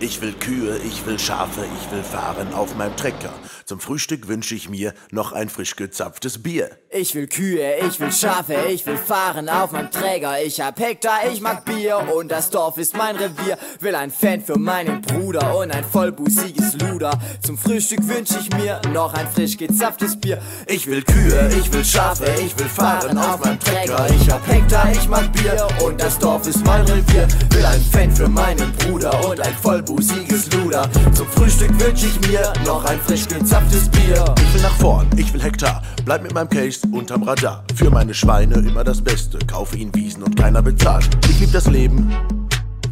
Ich will Kühe, ich will Schafe, ich will fahren auf meinem Trecker. Zum Frühstück wünsche ich mir noch ein frisch gezapftes Bier. Ich will Kühe, ich will Schafe, ich will fahren auf meinem Träger. Ich hab Hektar, ich mag Bier und das Dorf ist mein Revier. Will ein Fan für meinen Bruder und ein vollbusiges Luder. Zum Frühstück wünsch ich mir noch ein frisch gezapftes Bier. Ich will Kühe, ich will Schafe, ich will fahren auf meinem Trecker. Ich hab Hektar, ich mag Bier und das Dorf ist mein Revier. Will ein Fan für meinen Bruder und ein vollbusiges Luder. Zum Frühstück wünsch ich mir noch ein frisch gezapftes Bier. Ich will nach vorn, ich will Hektar, bleib mit meinem Case unterm Radar. Für meine Schweine immer das Beste, kaufe ihnen Wiesen und keiner bezahlt. Ich lieb das Leben,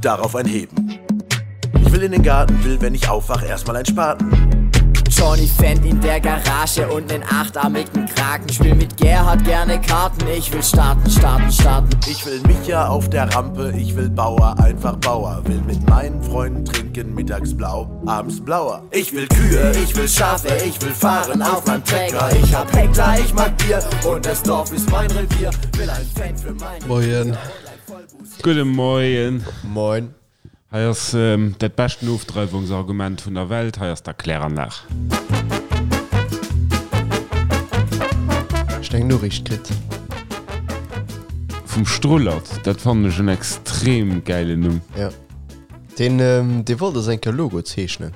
darauf ein Heben. Ich will in den Garten, will, wenn ich aufwach, erstmal ein Spaten. Johnny Fendt in der Garage und nen achtarmigen Kraken. Spiel mit Gerhard gerne Karten, ich will starten, starten, starten. Ich will Micha auf der Rampe, ich will Bauer, einfach Bauer. Will mit meinen Freunden trinken, mittags blau, abends blauer. Ich will Kühe, ich will Schafe, ich will fahren auf meinem Trecker. Ich hab Hektar, ich mag Bier und das Dorf ist mein Revier. Will ein Fan für meinen Moien. Gudde Moien. Moin. Hei ass dat beschten Ofdreiwungsargument vun der Welt, hei ass d'Erkläranlag. Ech eng Noriicht kritt. Vum Strullert, dat fannen ech en extrem gäilen Numm. Jo, deen dee wollt eis eng Kéier Logo zeechnen.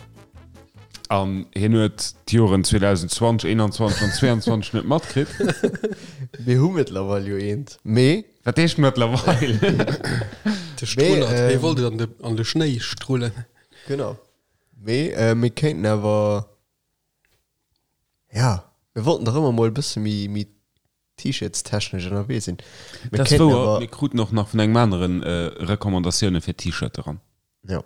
An hien huet d'Joren 2020, 21 an 22 net matkritt. Mir hu mëttlerweil jo eent, mee. Wat heescht mëttlerweil? De Strullert, hie wollt et an de, an de Schnéi strullen. Genau. Mee mir kéinten awer, ja, mir wollten dach ëmmer mol e bësse méi, méi T-Shirts-technesch ënnerwee sinn. Mir Dat ass kéinten wouer, awer. mir kruten och nach vun engem anere Recommandatioune fir T-Shirte ran. Jo.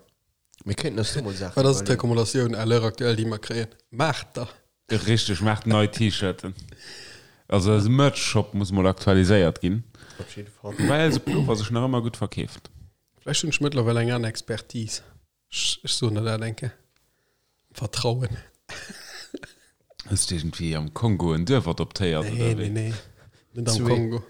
Mir kéinten eis do mol Saachen Wat ass iwwerleeën. d'Recommandatioun à l'heure actuelle, déi mer kréien? Maacht der! Richteg, maacht nei T-Shirten. Also eise Merch-Shop muss mol aktualiséiert ginn. Op jidde Fall. Woubäi eise Pullover sech nach ëmmer gutt verkeeft. Vläicht hunn ech mëttlerweil eng aner Expertise. Ech, ech soen der dat eng Kéier. Am Vertrauen. Hues de iergendwéi am Kongo en Duerf adoptéiert Nee, oder nee, wéi? nee. Net am Zwee. Kongo.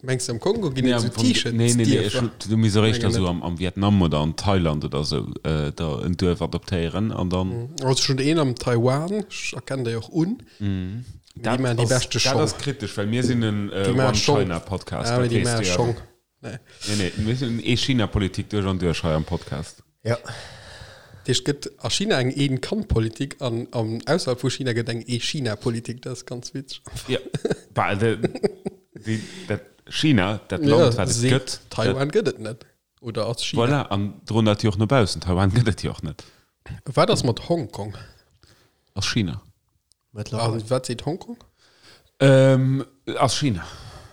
Mengs de am Kongo ginn Nee, et am esou Fong, nee, nee, nee, ech T-Shirt-Dierfer? hu, du misst och éischter Mengen esou net. am, am Vietnam oder an Thailand oder esou äh, der en Duerf adoptéieren an dann. Also schon een am Taiwan, ech erkennen déi och un. Mee déi Dat maachen déi ass, beschte dat Schong. ass kritesch, well mir sinn en äh, Déi maache Schong. One-China-Podcast, Ah, mee dat déi weess maache du jo. Schong. Nee. Nee, nee, mir sinn Ee-China-Politik duerch an duerch hei am Podcast. Ja. Dat heescht, et gëtt a China eng Een-Kand-Politik an am ausserhalb vu China gëtt eng Ee-China-Politik. Dat ass ganz witzeg. Ja, bah, de, déi, dat China, dat Ja, Land, wat et seet, gëtt, dat, Taiwan gëtt et net. Oder ass China. voilà, an droen dat jo och no baussen. Taiwan gëtt et jo och net. Wat ass mat Hongkong? Ass China. Mëttlerweil. A wat seet Hongkong? Ähm, ass China.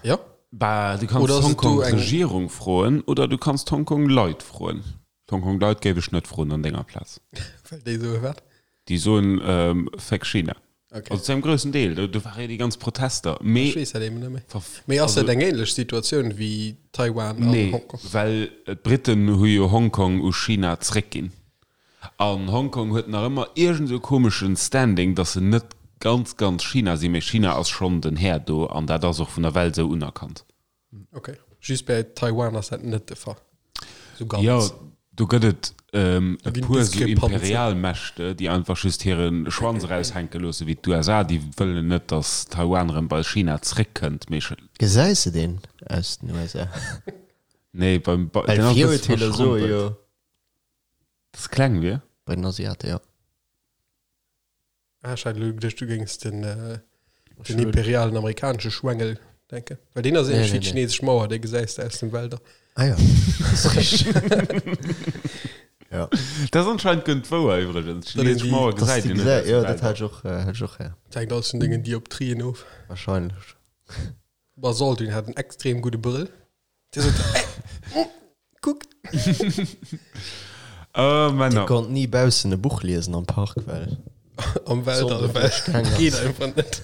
Ja. Bah, du kanns Oder ass et d'Hongkong do eng- Regierung froen oder du kanns d'Hongkong Leit froen. D'Hongkong Leit géif ech net froen an denger Plaz. Well déi soe wat? Déi soen ähm, Fuck China. Okay. Also zu engem groussen Deel. Do, do ware jo déi ganz Protester. Mee Ech weess dat eben net méi. verf- Mee ass also- dat eng ähnlech Situatioun wéi Taiwan an Nee, Hongkong? well d'Briten hu jo Hongkong u China zréckginn. An Hongkong huet nach ëmmer iergend esou komeschen Standing, dass se net ganz, ganz China sinn, mee China ass schonn den Här do an dat ass och vun der Welt esou unerkannt. Ok, just bäi Taiwan ass dat net de Fall. Esou ganz. Jo, do gëtt et e ginn puer esou Diskrepanzen. Imperialmächte, déi einfach just hire Schwanz eraushänke loosse wéi d'USA, déi wëllen net, dass Taiwan erëm bei China zréckkënnt, mee. Gesäis de deen aus den USA? Nee, beim, Well den ass e bësse Virurteeler soe verschrompelt. jo. Dass kleng wier? Bei den Asiate, jo. Ah, ech hat elo geduecht, du géings den, äh, den imperialen amerikanesche Schwengel denken. Well deen ass ähnlech Nee, wéi nee, d'chinesesch Mauer, dee gesäis de aus den Wälder. Ah ja, das ist richtig. ja. Dat ass anscheinend gënnt wouer iwwregens. D'chinesesch die- Mauer Das gesäit die een net gesä aus de ja, dat Wäldern. hat ich och, äh, hat ich och her. Dat hänkt alles vun dengen Dioptrien of. Wahrscheinlech. Basalt, hat en extrem gudde Brëll. Dir sot, ey, mm, kuck. Oh, Männer. Dir konnt ni baussen e Buch liesen am Park, well Am Weltall, D'Sonn well duerchgaang ass. geet einfach net.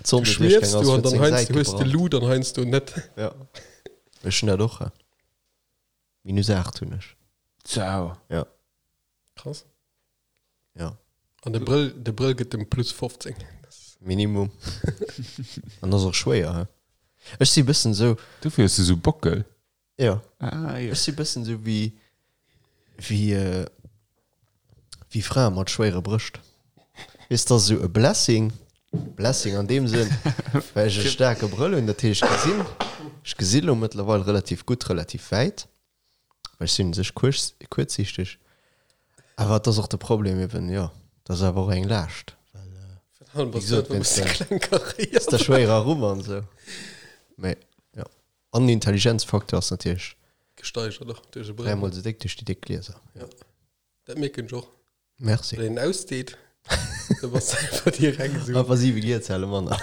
D'Sonn Du duerchgaang schwiefs ass, du an huet dann seng heiansdo Säit hues de gebrannt. Lut an heiansdo net. Ja. Ech hunn dat och. Minus 8 hunn ech. Ciao. Ja. Krass. Ja. An de Brëll, de Brëll gëtt dem plus 15. Minimum. An ass och schwéier, he? Ech si bëssen sou. Dofir hues du sou Bockel. Ja. Ah, jo. Ech si bëssen sou wéi. Wéi wéi Frae mat schwéiere Brëscht. Weess, dat ass esou e Blessing, Blessing an deem Sënn, well ech e staarke Brëll hunn, dat heescht, ech gesinn, ech gesi lo mëttlerweil relativ gutt, relativ wäit, well ech sinn u sech kuerz, kuerzsiichteg. Awer et ass och de Problem eben, jo, dat ass awer och eng Laascht, well, wéi gesot, wéinst der, der schwéierer Rumm an esou. Mee jo, an den Intelligenzfaktor ass natierlech Gesteigert och duerch e Brëll. Dräimol esou déck duerch déi déck Glieser, jo. Dat mierken ech och. Merci. Wann een ausdeet, da bass de einfach direkt esou. Einfach 7 Gierzelle manner.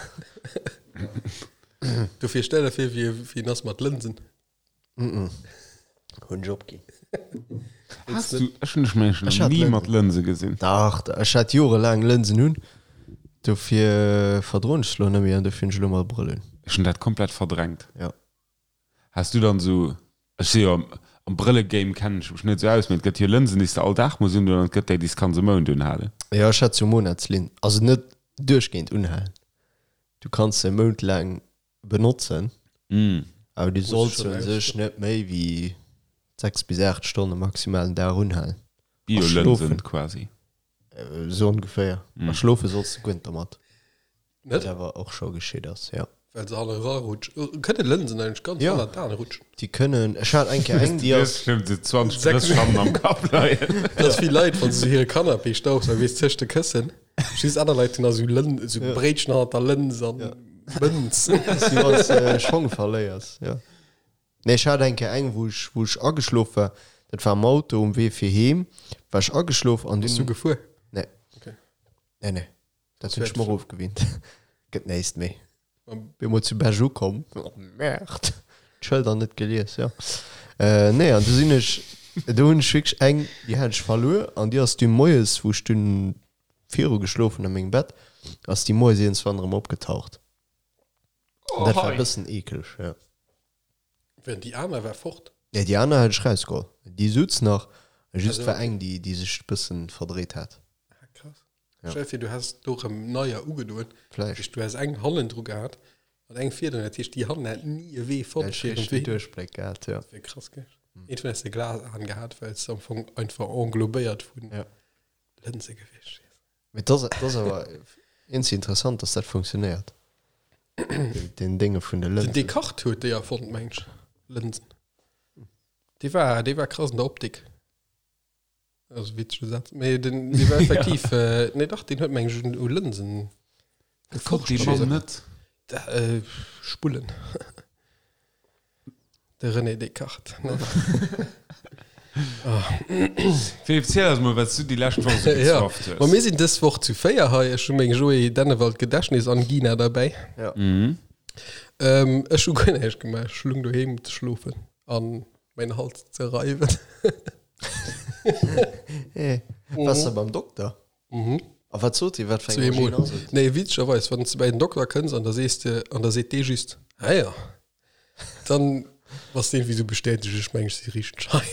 Dofir stell der vir, wéi wéi en ass mat Lënsen. Mm hunn ech opginn. Has du, ech hunn dech mengen ech nach ni mat Lënse gesinn. Dach, ech hat jorelaang Lënsen un, dofir verdroen ech se lo net méi an dofir hunn ech elo mol Brëll un. Ech hunn dat komplett verdrängt. Jo. Has du dann esou, ech si jo am Brëllegame kennen ech mech net esou aus, mee et gëtt jo Lënsen déi s de all Dag muss undoen an et gëtt déi déi s kanns e Mount unhalen. Jo ech hat sou Monatslinn, also net duerchgehend unhalen, du kanns se e Mount laang benotzen, awer du solls se u sech net méi wéi 6 bis 8 Stonne maximal den Dag unhalen. Bio-Lënsen quasi. Esou ongeféier. A schlofe solls de guer net dermat. Net? Wat awer och scho geschitt ass, jo. Well se hanne rarutschen. Kënne Lënsen eigentlech ganz Jo. hanner d'Aen rutschen? Déi kënnen, ech hat eng Kéier eng, déi ass. Bestimmt sou 20 Drësschammen am Kapp leien. Dat ass wéi Leit, wann se sou hire Canapé staubsaugen, weess, tëscht de Këssen. Just aner Leit hunn da sou Lën, sou Bréitchen hannert der Lëns an Mënz. Dat ass wéi wann s de Schong verléiers, jo. Nee, ech hat eng Kéier eng, wou ech, wou ech ageschlof war. Dat war am Auto um Wee fir heem, war ech ageschlof an Bass du dunn. gefuer? Nee. Okay. Nee, nee. Dat hunn ech mer ofgewinnt. Gëtt näischt méi. Bin mol zu Bech ukomm. Oh Merde. D'Schëlder net gelies, jo. Nee, an du sinn ech, do hunn ech wierklech eng, déi hat ech verluer an déi ass du moies, wou ech dunn viru geschlof hunn a mengem Bett, ass déi moies iergendswann erëm opgetaucht. An dat war e bëssen eekeleg, jo. Während déi aner war fort? Nee, déi aner hat ech rausgeholl. Déi sutz nach, just war eng, déi, déi sech e bëssen verdréit hat. Ah, krass. Ja. Stell dir vir, du häss do rëm neier ugedoen. Vläicht. Du häss eng hannendru gehat an eng virdrun. Dat heescht, déi hannen hätt ni e Wee fonnt fir hiren Wee. Duerchbléck gehat, ja. Dat wier krass gewiescht. Iergendwann häss de Glasaen gehat, well s de am Fong einfach englobéiert vun Ja. Lënse gewiescht wiers. Mee dat ass, dat ass awer iergendwéi interessant, dass dat funktionéiert. Den Dénge vun de Den Lënsen. Descartes huet déi erfonnt, meng ech, Lënsen. Dee war, dee war krass an der Optik. Also witzege Satz. Mee den, dee war effektiv, äh, nee dach, deen huet meng ech un u Lënsen Gekocht dee geforscht. Mann net? Da, äh, Spullen. De René Descartes. Ne? Philippe, ziel eis mol, wat s du déi lescht Woch esou Ja. gezwafft hues. Ma mir sinn dës Woch zu 4 hei. Ech hu meng Joé Dennewald Gedächtnisangina derbäi. Ja. Mhm. Ähm, ech hu guer näischt gemaach. Ech lung doheem ze schlofen an mäin Hals ze reiwen. Hey, Waars de beim Dokter? Mhm. A wat sot hie? Wat fir eng Zweemol. Angine ass et? Nee, witzegerweis, wann s de bei den Dokter kënns an da sees de, an da seet dee just, ah ja, dann bass de iergendwéi sou bestätegt, ech mengen, ech si richteg hei.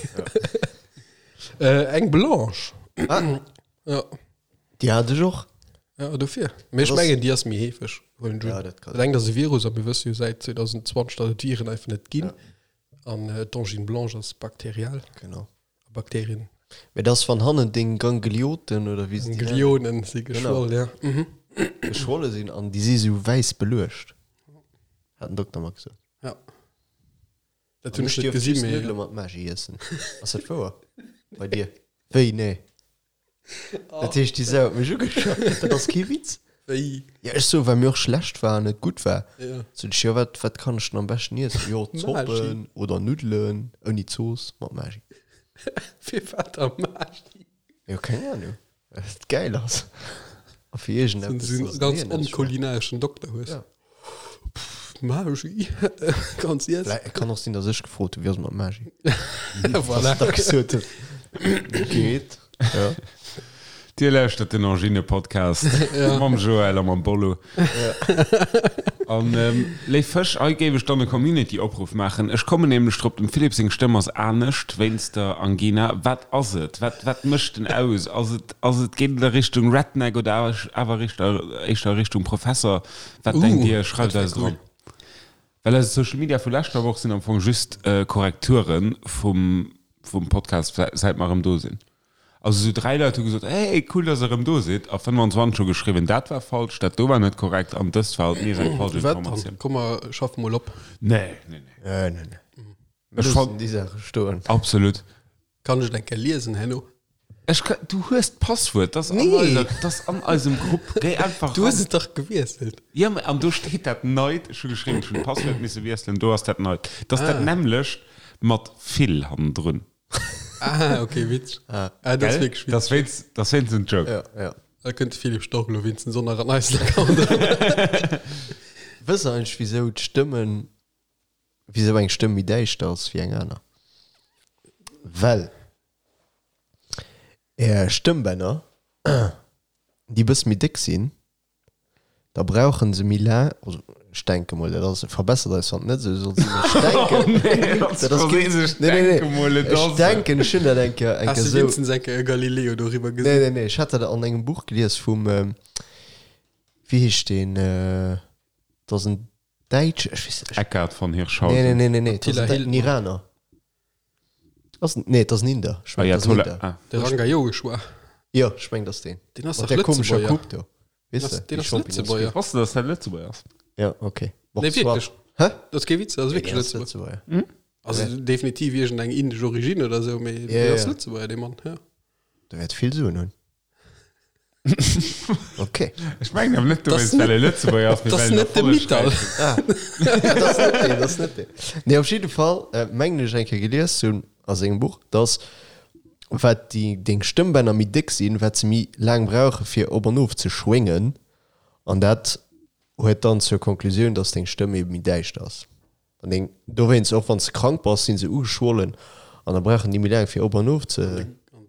Äh, eng Blanche. Ah. Ja. Déi hat ech och. Ja, dofir. Mee ech Das- mengen, déi ass méi heefeg. Huelen ech Ja, un. dat kann Dat engt ass e Virus a mir wësse jo säit 2020, datt et Viren einfach net ginn. An d'Angine blanche ass bakteriell. Genau. A Bakterien. Mee dat ass, wann hannen deng Ganglioten oder wéi se déi nennen, Ganglionen si geschwoll, ja. Mhm. geschwolle sinn an déi si sou wäiss beluecht, hat den Dokter mer gesot. Ja. Dat An hunn ech ech net dierf gesinn, just mee. Nuddele mat Maggi iessen. Ass dat wouer? Bei dir? Wéi? Nee. Dat heescht, déi Sau huet mech ugeschaut. Dat ass kee Witz. Wéi? Ja, ech so, well mir och schlecht war an et gutt war. Ja. Sot ech, jo, wat, wat kann ech denn am beschten iessen? Jo, Zoppen oder Nuddelen ouni Zooss mat Maggi. Firwat da Maggi? Jo, keng Ahnung. Well et gäil ass. A fir iergendeppes, Sou en dass ganz den Hirn net schmaacht. onkulinareschen Dokter hues. Ja. Pff, Maggi, ganz iess. Vläi, et kann och sinn, dass ech gefrot hunn, wéi ass et mat Maggi? Voilà. Dass da gesot huet, geet. Ja. Dir lauschtert den Angine-Podcast mam Joël a mam Bollo. An léif Fësch, hei géif ech dann e Community-Opruff maachen. Ech kommen nämlech drop, dem Philippe seng Stëmm ass anescht wéinst der Angina. Wat ass et? Wat, wat mécht en aus? Ass et, ass et, geet et a Richtung Redneck oder awer éischter Richtung Professer? Wat denkt Dir? Schreift eis et eran. Well eise Social Media vu leschter Woch sinn am Fong just Korrekture vum. vum Podcast, säit mer erëm do sinn. Also esou 3 Leit hu gesot, hey, cool, dass der erëm do sidd, a 25 hu geschriwwen, dat war falsch, dat do war net korrekt an dëst war alt nees eng falsch Wat dann? Informatioun. Komm mer schaffe mol op. Nee, nee, nee. Nee, nee, nee. Ech Loossen déi Saache stoen. Absolut. Kann ech et eng Kéier liesen herno? Ech ka, du hues d'Passwuert, dat ass an Nee. eiser, dat ass an eisem Grupp. Géi einfach Du hues ran. et dach gewiesselt. Ja, mä an do steet dat neit. Ech hu geschriwwen, ech hunn d'Passwuert misse wiesselen, do ass dat neit. Dat ass dat nämmlecht mat vill hannendrun. Ah, okay, witzeg. Ah, dat ass Gell? wierklech Dat ass witzeg. wéinst, dat ass wéinst en Joke. Ja, ja. Da kënnt de Philippe Stork elo wéinstens och nach an eisen Account eran. Wësst der eigentlech, wisou d'Stëmmen, wisou eng Stëmm méi däischter ass wéi eng aner? Well är Stëmmbänner, déi bësse méi déck sinn, da brauchen se méi laang, also ech denke mol, dat ass, verbessert eis wann et net esou soll sinn, ech denken, dat ass keen, nee, nee, nee, ech denken, ech hunn dat eng Kéier, eng Has Kéier de esou, wéinstens eng Kéier e Galileo doriwwer nee, gesinn? nee, nee, ech hat dat an engem Buch gelies vum, wéi heescht deen, dat ass en Däitsch, ech weess net, ech, Eckart von nee, nee, Hirschhausen. nee, nee, nee, dat ass Attila en Dä- en Hildmann. Iraner. Ass en, nee, et ass en Inder, ech mengen, et ass en Ayatollah, Inder. ah. De Ranga Yogeshwar. Jo, ech mengen, dat ass deen. Deen ass Mat dach där komescher Lëtzebuerger. Coupe do. Weess Deen de, ass, deen déi ass Champignons Lëtzebuerger. Wosst de, dass dat Lëtzebuerger ass? Ja, okay. Bon, Nee, soit. wierklech. Hä? Dat ass kee Witz, dat ass Nee, wierklech deen ass Lëtzebuerger. Lëtzebuerger. Also definitiv iergendeng indesch Origine oder esou, mee Ja, deen ass ja. Lëtzebuerger, dee Mann, ja. Der wäert vill Suen hunn. Okay. Ech mengen awer net Das dowéinst, well e Lëtzebuerger ass, mee Das well en net de Mittal. erfollegräich Ah. Dat ass net deen, dat ass net deen. Nee, op jidde Fall äh, mengen ech eng Kéier gelies ze hunn a sengem Buch, dass wat déi deng Stëmmbänner méi déck sinn, wat se méi laang brauche fir op an of ze schwéngen. An dat huet dann zur Konklusioun, dass deng Stëmm ebe méi däischter ass. An deng, dowéinst, och wann s de krank bass, si se ugeschwollen an da brauchen déi méi laang fir op an of ze,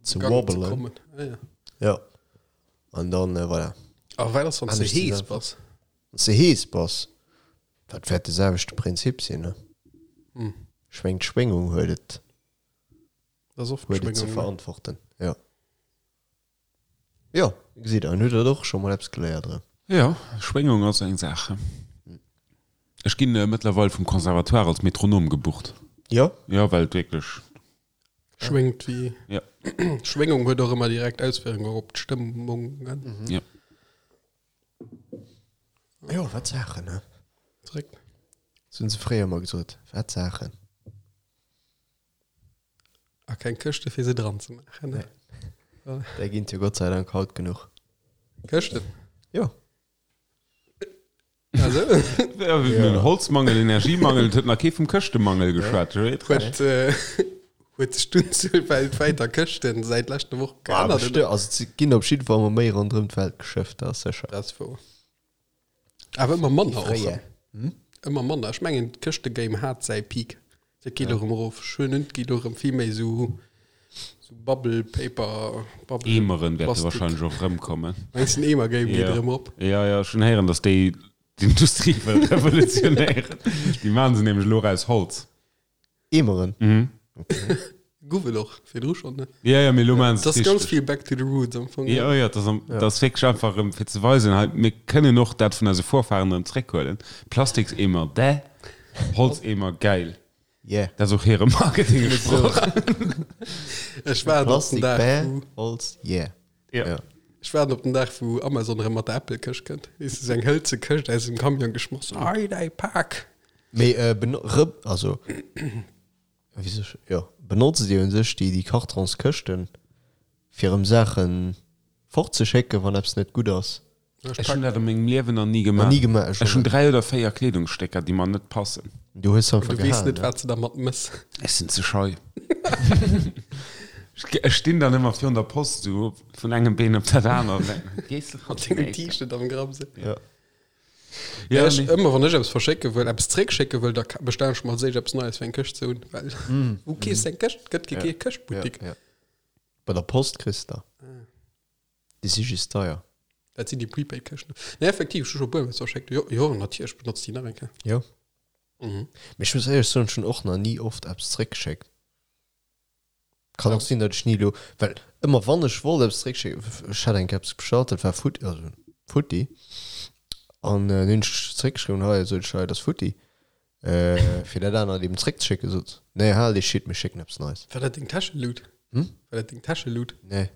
ze Gang ze wobbelen. kommen. Ah, ja. Ja. An dann, äh, voilà. A wat ass, wann s de Anescht hees zusammen. bass? Wann s de hees bass, dat wäert de selwechte Prinzip sinn, ne? Hm. Ech mengen, d'Schwéngung huet et, Dat ass oft huet et ze d'Schwéngung, ne? verantworten. Ja. Jo, gesitt der, an hutt der och scho mol eppes geléiert erëm. Jo, Schwéngung ass eng Saach. Ech ginn mëttlerweil vum Conservatoire als Metronom gebucht. Jo? Jo, well et wierklech. Schwéngt wéi. Jo. Schwéngung huet och ëmmer direkt Auswierkungen op d'Stëmmung. Jo. Jo, wat Saachen, ne? Zréck. Dat hunn se fréier ëmmer gesot, wat Saachen. A keng Këschte fir se dran ze maachen. Ne? Nee. Där ginn et jo Gott sei Dank haut genuch. Këschten? Jo. Also? Ja, mir hunn Holzmangel, Energiemangel, et huet nach kee vum Këschtemangel geschwat. Huet, äh, huet sech d'Unzuel weltwäit a Këschten säit leschter Woch Ah, geännert? bestimmt. Also et ginn op jidde Fall ëmmer méi ronderëm d'Welt geschëfft, dat ass sécher. Dat ass wouer. Awer ëmmer manner och. Fréier. Ëmmer manner. Ech mengen d'Këschtegame hat säi Peak. Dat geet elo erëm erof. Ech hunn et geet elo erëm vill méi esou sou Bubble Paper, Bubble Eemeren wäerte Plastik. wahrscheinlech och erëmkommen. Mengst den Eemer-Game geet Ja. erëm op? Ja, ja, ech hunn héieren, datt déi d'Industrie wëll revolutionéieren. Déi maachen se nämlech elo och aus Holz. Eemeren? Mhm. Gouf et och virdru schonn, ne? Ja, ja, mee elo maachen se Dat et ass ganz richteg. vill Back to the Roots am Fong. Ja, ja, dat ass, dat ass wierklech einfach erëm fir ze weisen, hei, mir kënnen och dat vun eise Vorfahren erëm zréckhuelen. Plastikseemer, däh, Holzeemer, gäil. Yeah. Dat ass och hire Marketingsproch. Ech waarden op den Plastik, Dag, bäh, wou, Holz, yeah. Ja. Ja. ech waarden op den Dag, wou Amazon erëm mat der Apple-Këscht kënnt. Weess de, sou eng hëlze Këscht aus dem Camion geschmoss. Hei, däi Pak! Mee äh, beno rë also wéi soll ech, jo, benotzt Dir un sech déi, déi Kartonskëschten, fir erëm Saachen fortzeschécken, wann eppes net gutt ass? Ech hunn dat a mengem Liewen nach ni Nach gemaach. ni gemaach, ech Ech och hunn net. 3 oder 4 Kleedungsstécker, déi mer net passen. Du hues se einfach Du weess gehalen, net, ne? wat s de dermat mëss. Ech sinn ze schei. Ech stinn dann ëmmer virun der Post, sou vun engem Been op dat anert an denken, Gees de Mat dengem T-Shirt am Grapp sou. Ja. Ja, ech, nee. ëmmer wann ech eppes verschécke wëll, eppes zréckschécke wëll, da ka- bestellen ech mer als éischt eppes Neies fir eng Këscht ze hunn, well wou keefs de eng Këscht? Gëtt kee Ja. Këschtbuttik. Ja, ja. Bei der Post kriss de. Déi si just deier. Dat sinn déi Prepaid-Këschten. Nee, effektiv, ech hu scho e puer Mol verschéckt. Jo, jo, natierlech benotzt déi nach eng Kéier. Jo. Mhm. Mee ech muss éierlech soen, ech hunn och nach ni oft eppes zréckgeschéckt. Kann och sinn, datt ech ni elo, well ëmmer wann ech wollt eppes zréckschécken, ech hat eng Kéier eppes bestallt, dat war futti, also futti, an dann hunn ech zréckgeschriwwen, hei, sot ech, hei, dat ass futti. Fir dat anert eben zréckzeschécken, sot se, Nee, hal dee Shit, mir schécken eppes Neies. War dat deng Täschelut? Hm? War dat deng Täschelut? Nee.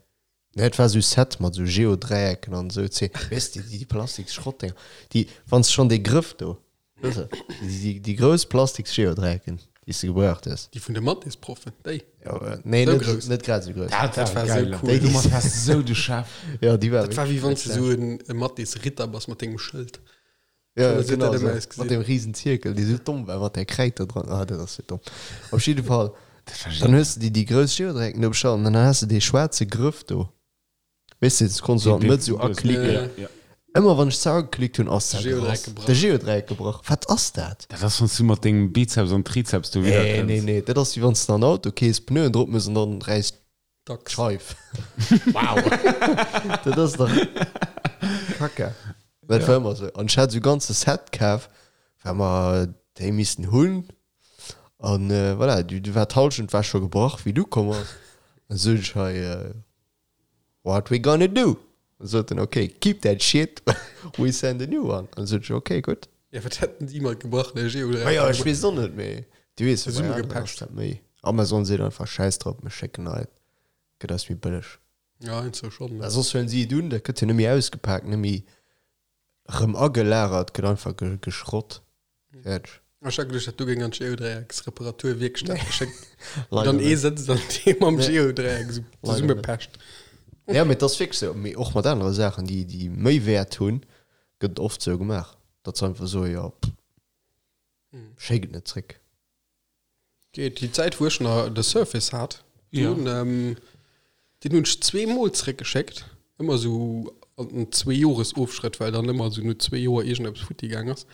Nee, et war esou Set mat esou Geodräiecken an esou Zee, weess de, déi Plastiksschrottdinger, déi, wann s de schonn dee Grëff do, weess de, déi, déi grouss Plastiks-Geodräiecken, déi s de gebraucht hues. Déi vun de Mathésproffen, déi? Jo, nee, Sou net, grouss. net grad esou grouss. Dat Dat war war sou geil. cool. Déi, déi Domat waars de sou de Chef. Jo, déi war Dat war wéi wierklech wann s net de sou schlecht. en e Mathésritter bass mat dengem Schëld. Ja, genau so. Mat dem riesen Zirkel, dee sou domm war, mat där Kräid do dran. Ah, dat ass sou domm. Op jidde Fall, dann hues de déi, déi grouss Geodreiecken do bestallt an dann has de dee schwaarze Grëff do. Weess de, dat konns du an d'Mëtt sou aklicken. Ja. Ëmmer wann ech ze ageklickt hunn, ass dat Geodreieck gerass. gebrach. De Geodreieck gebrach. Wat ass dat? Dat ass, wann s du mat dengem Bizeps an Trizeps do widder Nee, kënns. nee, nee. Dat ass wéi wann s de an Auto kees, Pneuen drop mëss an dann räisst Dacks. Scheif. Wow. Dat ass dach Kacke. Dat war ëmmer sou. An ech hat sou ganze Set kaf, well mer déi missten hunn. An äh, voilà, du, du war d'Halschent war scho gebrach, wéi du komm ass. An sot ech hei, äh, what we gonna do? An sot en, okay, keep that shit, we send a new one. An sot ech, okay, gutt. Ja, wat hätten si mat gebrachene Geodreiecker Ma jo, ech gemaach? weess och net, mee du weess jo, bei aneren ass Zesummegepecht. dat méi. Amazon seet einfach, schäiss drop, mir schécken nei, gëtt eis méi bëlleg. Ja, heiansdo schonn, Well ne? soss huelen si et un, dat gëtt jo net méi ausgepaakt, net méi rëm agelagert, gëtt einfach ge geschrott, fäerdeg. Ech hat geduecht, dat do géing an d'Geodreiecksreparaturwierkstatt geschéckt. Leider Dann ee net. sëtzt an dee mam Nee. Geodreieck esou Leider net. zesummepecht. Ja, mee et ass wierklech esou. Mee och mat anere Saachen, déi, déi méi Wäert hunn, gëtt et oft esou gemaach, datt se einfach soen, jo, pff, schéck et net zréck. Geet déi Zäit wou ech nach de Surface hat, Ja. dun, ähm, deen hunn ech zweemol zréckgeschéckt, ëmmer sou an den Zweejoresofschrëtt, well dann ëmmer sou no zwee Joer iergendeppes futti gaang ass,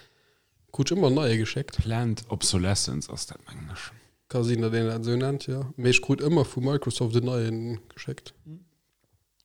krut ech ëmmer en neie geschéckt. Planned Obsolescence ass dat, mengen ech. Ka sinn, datt een dat esou nennt, jo. Mee ech krut ëmmer vu Microsoft en neien geschéckt.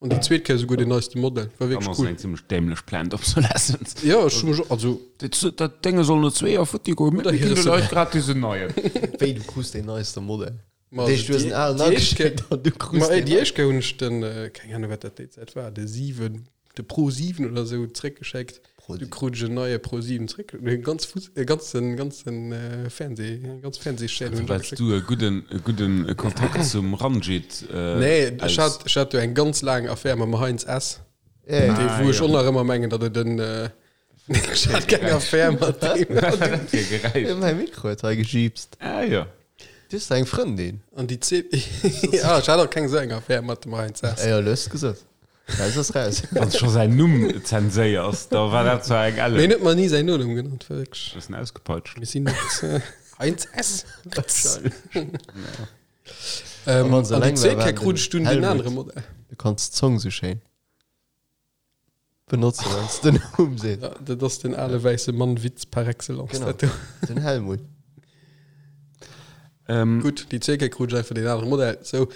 An déi zweet Kéier souguer den neiste Modell. War Dann wierklech ass cool. eng zimmlech dämlech Planned Obsolescence. Jo, ech hu mech och, also. Dat, dat Dénge soll no zwee Joer futti goen, Oder mir ginn de hire Leit gratis en neien. Wéi, du krus deen neiste Modell? Ma Dat heescht, du hues en alen déi éischt ageschéckt an du krus Ma deen déi éischt Kéier hunn ech den, keng Ahnung, wat dat déi Zäit war, de 7, de Pro 7 oder esou zréckgeschéckt. Pro Du 7. krut ech en neie Pro 7 zréck. E ganz Fuss, e ganzen, ganzen Fernseh, eng ganz Fernsehschaîne hunn ech Well ageschéckt. du e gudden, e gudden Kontakt zum Ranjit Nee, ech aus. hat, ech hat jo eng ganz laang Affär mam Heinz S. Ja, ja. Dee, Ah, wou ech jo. och nach ëmmer mengen, datt et en, ech hat keng Affär mat deem. Fir Geräisch. Mäi Mikro huet hei gejiipst. Ah jo. Du hues da eng Frëndin? An déi zweet, ja, ech hat och keng esou eng Affär mat dem Heinz S. Ah jo, lo hues de gesot. Raus ass raus. Wann scho säin Numm zenséiers, da war dat zwar eng Mee Ellen. en huet mer ni säin Nonumm genannt, war wierklech. Bëssen ausgepeitscht. Mir sinn net Heinz S. A Ähm, wann se an déi eleng war, zweet war Kéier krut den ech dunn den Helmut. anere Modell. Du kanns d'Zong sou schéin benotzen, wann s de den Numm sees. Ja, dat ass den ale wäisse Mann-Witz par excellence. Genau. Dat do. Den Helmut. Ähm, Gutt, déi zweet Kéier krut ech einfach den anere Modell. Sou,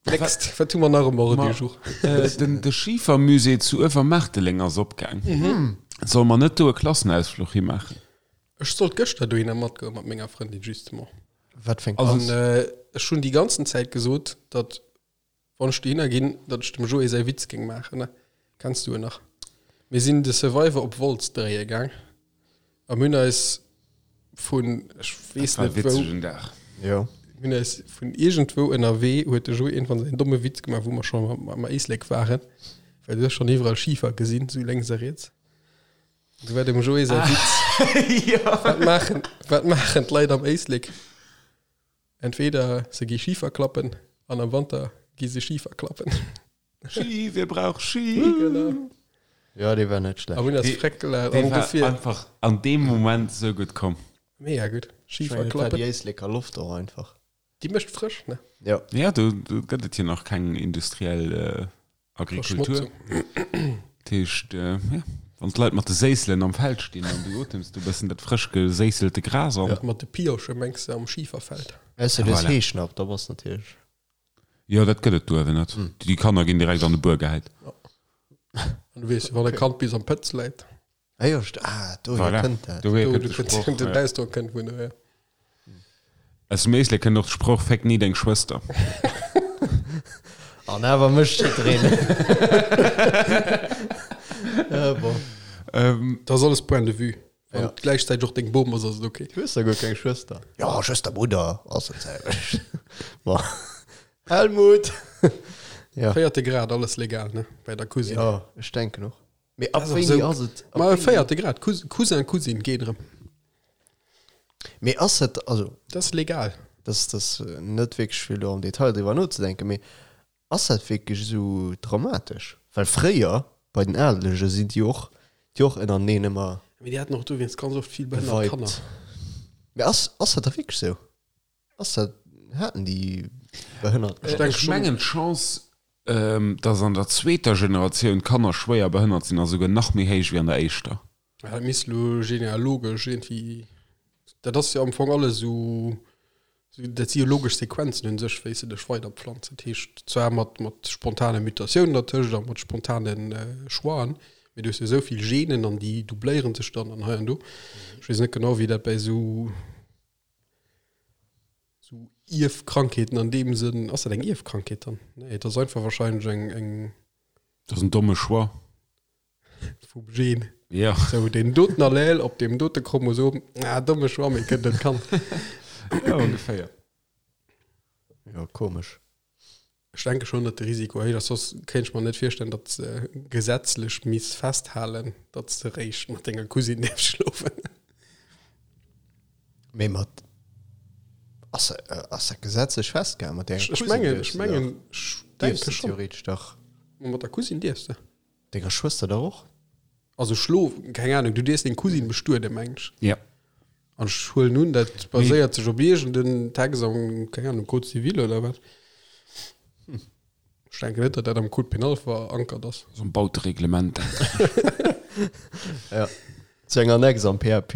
next, wat hu mer nach um Ordre du jour? Äh, den, de Schifermusée zu Uewermaarteleng ass opgaang. Mhm. Solle mer net do e Klassenausfluch himaachen? Ech sollt gëschter dohinner matgoen mat menger Frëndin, justement. Wat fir eng Also, An äh, ech hunn déi ganzen Zäit gesot, datt wann ech dohinner ginn, datt ech dem Joé säi Witz géing maachen. Ne? Kenns du en nach? Mir sinn de Survivor op Wolz dréie gaang a mir hunn eis vun, ech weess War net wou, witzegen Dag. Jo. mir hunn eis vun iergendwou ënnerwee huet de Joé iergendwann säin domme Witz gemaach, wou mer schonn am, am Éislek waren, well du hues schonn iwwerall Schifer gesinn, sou lénks a riets. Du war dem Joé säi Witz. Wat maachen, wat maachen d'Leit am Éislek? Entweder se gi Schifer klappen an am Wanter gi se Schifer klappen. Ski, wir brauch Ski. Genau. Ja, dee war net schlecht. A hunn eis Dee- freck gelaacht. Dee An war dofir einfach an deem Moment sou gutt komm. mega gutt. Schifer War déi klappen. Éisleker Loft och einfach. Déi mécht frësch, ne? Ja. Ja, do, do gëtt et jo nach keng industriell äh, Agrikultur. Verschmotzung. Dat heescht, äh, ja, wann d'Leit mat de Séisselen am Feld stinn an du otems du bëssen dat frësch geséisselte Gras an. Ja. Mat de Piosche mengs de am Schiferfeld. Ausser du hues Voilà. Heeschnapp, da bass natierlech. Jo, dat gëtt et do awer net. Déi Kanner ginn direkt an de Buer gehäit. An du weess, wann e Kand bis am Pëtz läit. Ah jo, st ah, dohier Voilà. kënnt dat. Dohier Do, kënnt du de kënnt Sproch. den ja. Ausdrock kënnt vun dohier. Aus dem Éislek kënnt och de Sproch Féck ni deng Schwëster. An awer mécht jiddereen. Ah bon. Ähm, Dat ass alles Point de vue. Wann et gläichzäiteg och deng Bom ass, ass et ok. Du hues da guer keng Schwëster. Jo, Schwëster, Brudder, ass dat selwecht. Bon. Helmut! Ja. Véierte Grad, alles legal, ne? Bei der Cousine. Jo, ech denken och. Mee ab Das ass wéini esou- ass et? ab Ma wéini- véierte Grad, Cous- Cousin, Cousine, geet erëm. Mee ass et, also, Dat ass legal. dat ass net wierklech fir elo am Detail driwwer nozedenken, mee Ass dat wierklech esou dramatesch? Well fréier bei den Adelege sinn déi och déi och ënnerteneen ëmmer Mee déi haten och dowéinst ganz oft vill behënnert Kanner. geweibt. Mee ass ass dat da wierklech esou? Ass dat, haten déi behënnert Ech Kanner? Ech mengen d'Chance, dass an der zweeter Generatioun d'Kanner schwéier behënnert sinn, ass esouguer nach méi héich wéi an der éischter. Ja, dat misst elo genealogesch iergendwéi, dat ass jo am Fong alles esou, dat si jo logesch Sequenzen un sech, wéi s de dech weiderpflanz. Dat heescht zwar mat, mat spontane Mutatiounen dertëscht a mat spontane Choixen, mee du hues jo esou vill Genen an déi doubléiere sech dann an hei an do. Ech weess net genau, wéi dat bäi esou, esou Ierfkrankheeten an deem Sënn, ass dat eng Ierfkrankheet dann? Nee, et ass einfach wahrscheinlech eng, eng. Dat ass en domme Choix. Vum Gen. Ja. Sou, deen doten Allel op deem dote Chromosom, ah, domme Choix, mee kënnt et kann. Ja, ongeféier. Jo, komesch. Ech denke schon, datt de Risiko héich ass, soss kéint ech mer net virstellen, datt se gesetzlech misst festhalen, datt s de réischt mat denger Cousine däerfs schlofen. Mee mat, ass, ass dat gesetzlech festgehalen? Mat denger Ech Cousine mengen, dierfs ech de dach, mengen, ech dierfs denke de schon. theoretesch dach. Mat der Cousine dierfs de. Denger Schwëster dach och? Also schlo, keng Ahnung, du dierfs deng Cousine bestueden, meng ech. Ja. An ech huelen un, dat baséiert sech op iergend en Text am, keng Ahnung, Code civil oder wat. Ech denken net, datt dat am Code pénal verankert ass. Am Bautereglement. Ja. Zu enger Annex am PAP.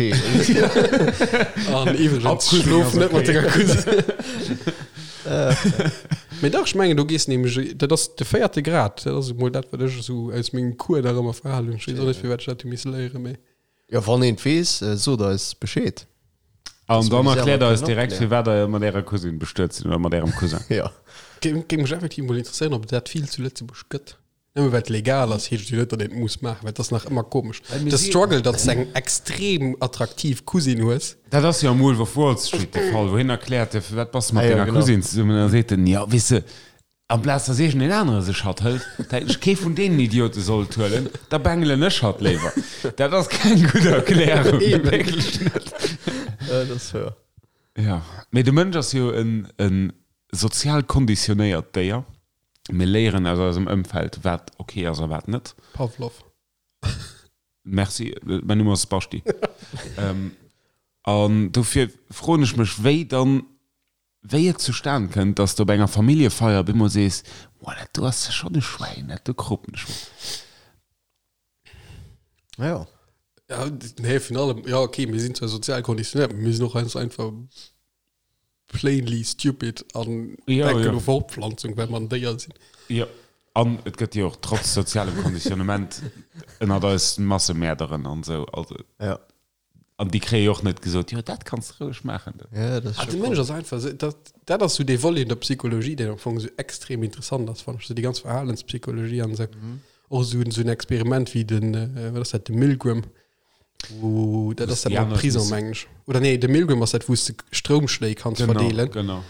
An iwwregens, schlof net mat denger Cousine. Mee dach, ech mengen, do gees nämlech, dat ass de véierte Grad, dat ass emol dat, wat ech esou aus mengem Cours nach ëmmer verhalen hunn. Ech weess och net, firwat ech dat hu misse léieren, mee. Jo, wann een et weess, sot eis Bescheed. An dann erkläert eis kënnen direkt, opklären. firwat der mat ärer Cousine bestuet sinn oder mat ärem Cousin. Jo. Géing mech effektiv emol interesséieren, ob et dat vill zu Lëtzebuerg gëtt. Nëmme well et legal ass, heescht et jo net, datt een et muss maachen, well et ass nach ëmmer komesch. De Struggle, datt s de eng extrem attraktiv Cousine hues. Dat ass jo am Wolf of Wall Street de Fall, wou hien erkläert, firwat bass de mat Ah jo, denger genau. Cousine zesummen? An da seet en, jo, weess de, amplaz datt iergendeen anere sech hatt hëlt, da hätt ech kee vun deenen Idiote sollt huelen, da bengelen ech hatt léiwer. Dat ass keng gutt Erklärung, wierklech net. Ja, dat ass wouer. Jo, mee de Mënsch ass jo en sozial konditionéiert Déier. Mir léieren aus eisem Ëmfeld, wat ok ass a wat net. Pavlov. Merci, mäin Numm ass Basti. An dofir froen ech mech, wéi dann, wéi et zustan kënnt, dass de op enger Familljefeier op eemol sees, Boah, dat do ass schonn e Schwäin, dat do kropen ech mer. Ja. Ja, nee, vun allem, ja, okay, mir sinn zwar sozial konditionéiert, mee mir sinn och ganz einfach plainly stupid an Ja, denken ja. u Fortpflanzung, well mer en Déier sinn. Jo, an et gëtt jo och trotz sozialem Konditionnement ënnert eis Massemäerderen an esou. Also, Ja. an déi kréie jo och net gesot, jo, dat kanns de roueg maachen. Ja, dat ass Ah, scho de Mënsch ass einfach esou, dat, dat ass sou dee Volet un der Psychologie, deen am Fong esou extrem interessant ass, fannen ech, sou déi ganz Verhalenspsychologie an esou. Och esou, esou en Experiment wéi den, äh, wat ass dat, de Milgram, wou, dat ass dat déi mam aner Prison, missen- mengen ech. Oder nee, de Milgram ass dat, wou s de Stroumschléi kanns verdeelen. Genau.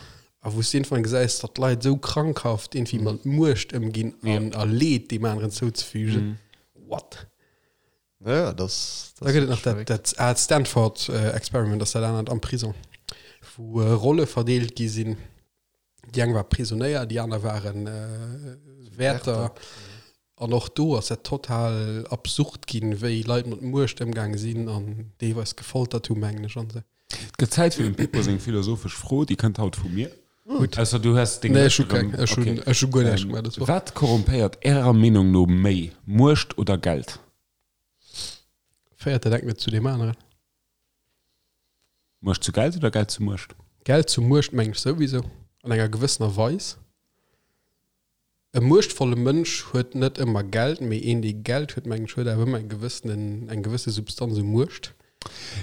A wou s de irgendwann gesäis, datt d'Leit esou krankhaft irgendwie mat Muecht ëmginn an a Leed deem aneren zouzefügen. What? Ja, das, Da gëtt et nach dat, dat aalt Stanford-Experiment, ass dat anert am Prison, wou Rolle verdeelt gi sinn. Déi eng war Prisonéier, déi aner waren Wäerter. An och do ass dat total absurd ginn, wéi Leit mat Muecht ëmgaange sinn an deelweis gefoltert hu, mengen ech, an esou. Et gëtt Zäit fir dem Pippo seng philosophesch Fro, déi kënnt haut vu mir. Gutt. Ausser du hues deng Nee, ech hu Lëscht erëm. keng. Ech hunn, Okay. ech hu guer näischt gemaach dës Woch. Wat korrumpéiert Ärer Meenung no méi, Muecht oder Geld? Féiert dat engt net zu deem aneren? Muecht zu Geld oder Geld zu Muecht? Geld zu Muecht mengen ech souwisou, an enger gewëssener Weis. E muechtvolle Mënsch huet net ëmmer Geld, mee een dee Geld huet, mengen ech, huet awer ëmmer eng gewëssenen, eng gewësse Substanz u Muecht.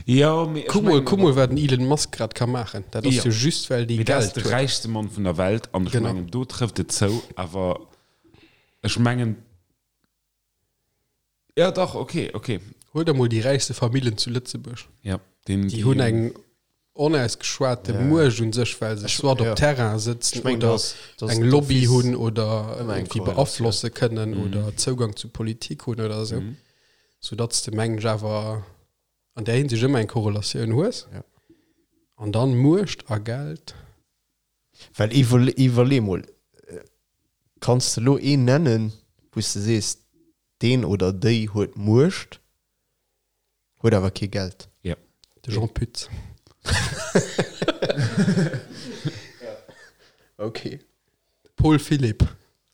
Jo, mee ech Kuck mol, mengen kuck mol wat den Elon Musk grad ka maachen. Dat ass Jo. jo just well dee Mee dat ass Geld de huet. räichste Mann vun der Welt an ech Genau. mengen do trëfft et zou, awer ech mengen, jo dach, okay, okay. Huel der mol déi räichste Famillen zu Lëtzebuerg. Ja, den, Déi hunn eng onausgeschwate Ja. Muecht un sech, well se Ech- soit op ja. Terrain sëtzen Ech mengen, oder dass- dass eng Lobby d'office hunn oder ëmmer eng irgendwie Korrelatioun. beaflosse kënnen Mhm. oder Zougang zu Politik hunn oder esou. Mhm. Soudatt s de, mengen ech, awer an där Hinsicht ëmmer eng Korrelatioun hues. Ja. An dann Muecht a Geld. Well iwwerle iwwerlee mol, kanns de lo een nennen, wou s de sees, deen oder déi huet Muecht, huet awer kee Geld? Ja. De Jean Pütz. Okay. Paul Philipp.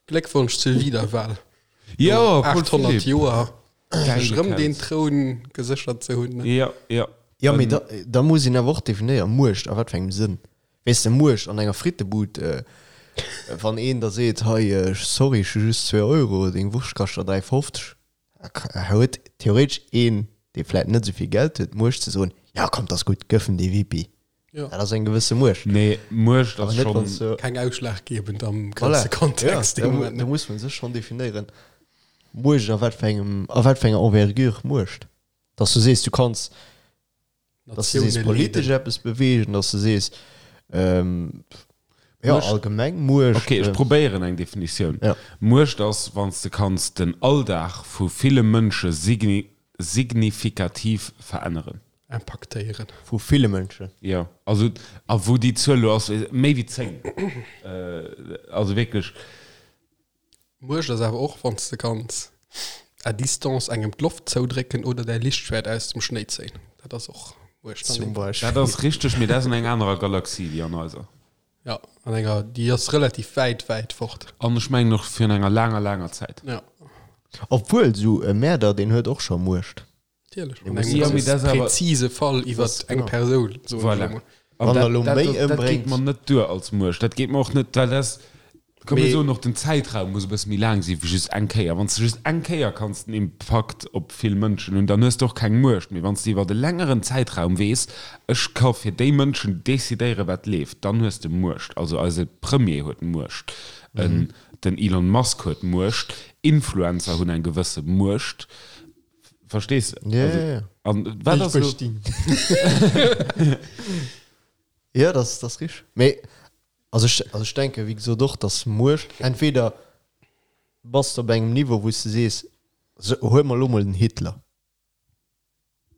Gléckwonsch zur Wiederwahl. Jo, Paul 800 Philipp. Joer sech Geile rëm den Kaz. Troun geséchert ze hunn. Ja, ja. Ja, mee da, da muss een awer och definéieren, Muecht a wat fir engem Sënn. Weess de, Muecht an enger Frittebud, wann een da seet, hei, sorry, ech hu just zwee Euro, deng Wurscht kascht der 3,50, da huet theoretesch een, dee vläit net esou vill Geld huet, d'Muecht ze soen, ja komm, 't ass gutt, gëff em dee Wipi. Ja. Dat ass eng gewësse Muecht. Nee, Muecht Awer ass net, wann s schonn. du. Keng ausschlaggebend am Voilà. ganze Kontext. Ja, dee da, Moment. da muss man sech schonn definéieren, Muecht a wat fir engem, a wat fir enger Envergure Muecht. Dass du sees, du kanns, dass du sees, Natioune politesch leeden. eppes beweegen, dass du sees, ähm, ja, Muecht- allgemeng Muecht. Okay, ech äh, probéieren eng Definitioun. Ja. Muecht ass, wann s de kanns den Alldag vu ville Mënsche signi signifikativ veränneren. Impaktéieren. Vu ville Mënschen. Jo, also, a wou déi Zuel elo ass, méi wéi 10. Also wierklech. Muecht ass awer och, wann s de kanns à distance engem d'Loft zoudrécken oder däi Lichtschwäert aus dem Schnéi zéien. Dat ass och Muecht an Zum deem. Beispill. Dat ass richteg, mee dat ass an enger anerer Galaxie wéi an eiser. Ja, an enger, déi ass relativ wäit, wäit fort. An ech mengen och virun enger laanger, laanger Zäit. Ja. Obwuel, esou e Mäerder, deen huet och scho Muecht. Natierlech. Dee An muss engem Ja, mee ganz dat ass awer- präzise Fall iwwer Das- eng genau. Persoun, soen ech Voilà. elo mol. An Wann dat, er lo dat, méi dat, dat geet ëmbréngt. mer net duer als Muecht. Dat geet mer och net, well dat, komm mir Mee- soen och, den Zäitraum muss e bësse méi laang si wéi just eng Kéier. Wann s de just eng Kéier kanns den Impakt op vill Mënschen hunn, dann hues de och keng Muecht méi. Wann s de iwwert e längeren Zäitraum weess, ech ka fir déi Mënschen decidéieren, wat leeft, dann hues de Muecht. Also eise Premier huet Muecht, en, den Elon Musk huet Muecht, Influencer hunn eng gewësse Muecht. Verstees de? Ja, Also, ja, ja. An wat ass elo? Ja, das, das richteg. Mee, also ech, also ech denke, wéi gesot, och, dass Muecht, entweder bass de op engem Niveau, wou s de sees, so, huel mer elo mol den Hitler.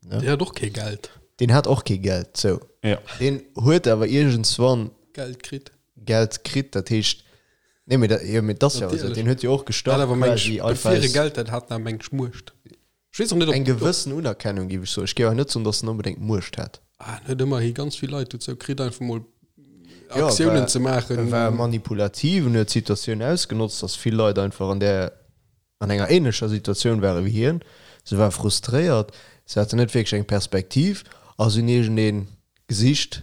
Deen hat och kee Geld. Deen hat och kee Geld, sou. Ja. Deen huet awer iergendswann Geld kritt. Geld kritt, dat heescht, nee, mee dat, jo, mee dat ass jo esou, Natierlech. deen huet jo och Hat gestart awer meng quasi ech, einfach bevir e aus Geld hat, hat en awer meng ech Muecht. Ech weess och net, ob. eng gewëssen Unerkennung, géif ech soen. Ech géif awer net soen, dass en onbedéngt Muecht hat. Ah, en huet ëmmerhi ganz vill Leit dozou kritt, einfach mol Ja, Aktiounen war- ze maachen. E war manipulativ en huet d'Situatioun ausgenotzt, dass vill Leit einfach an där, an enger ähnlecher Situatioun ware wéi hien. Se ware frustréiert, se haten net wierklech eng Perspektiv a se hunn iergendee gesicht,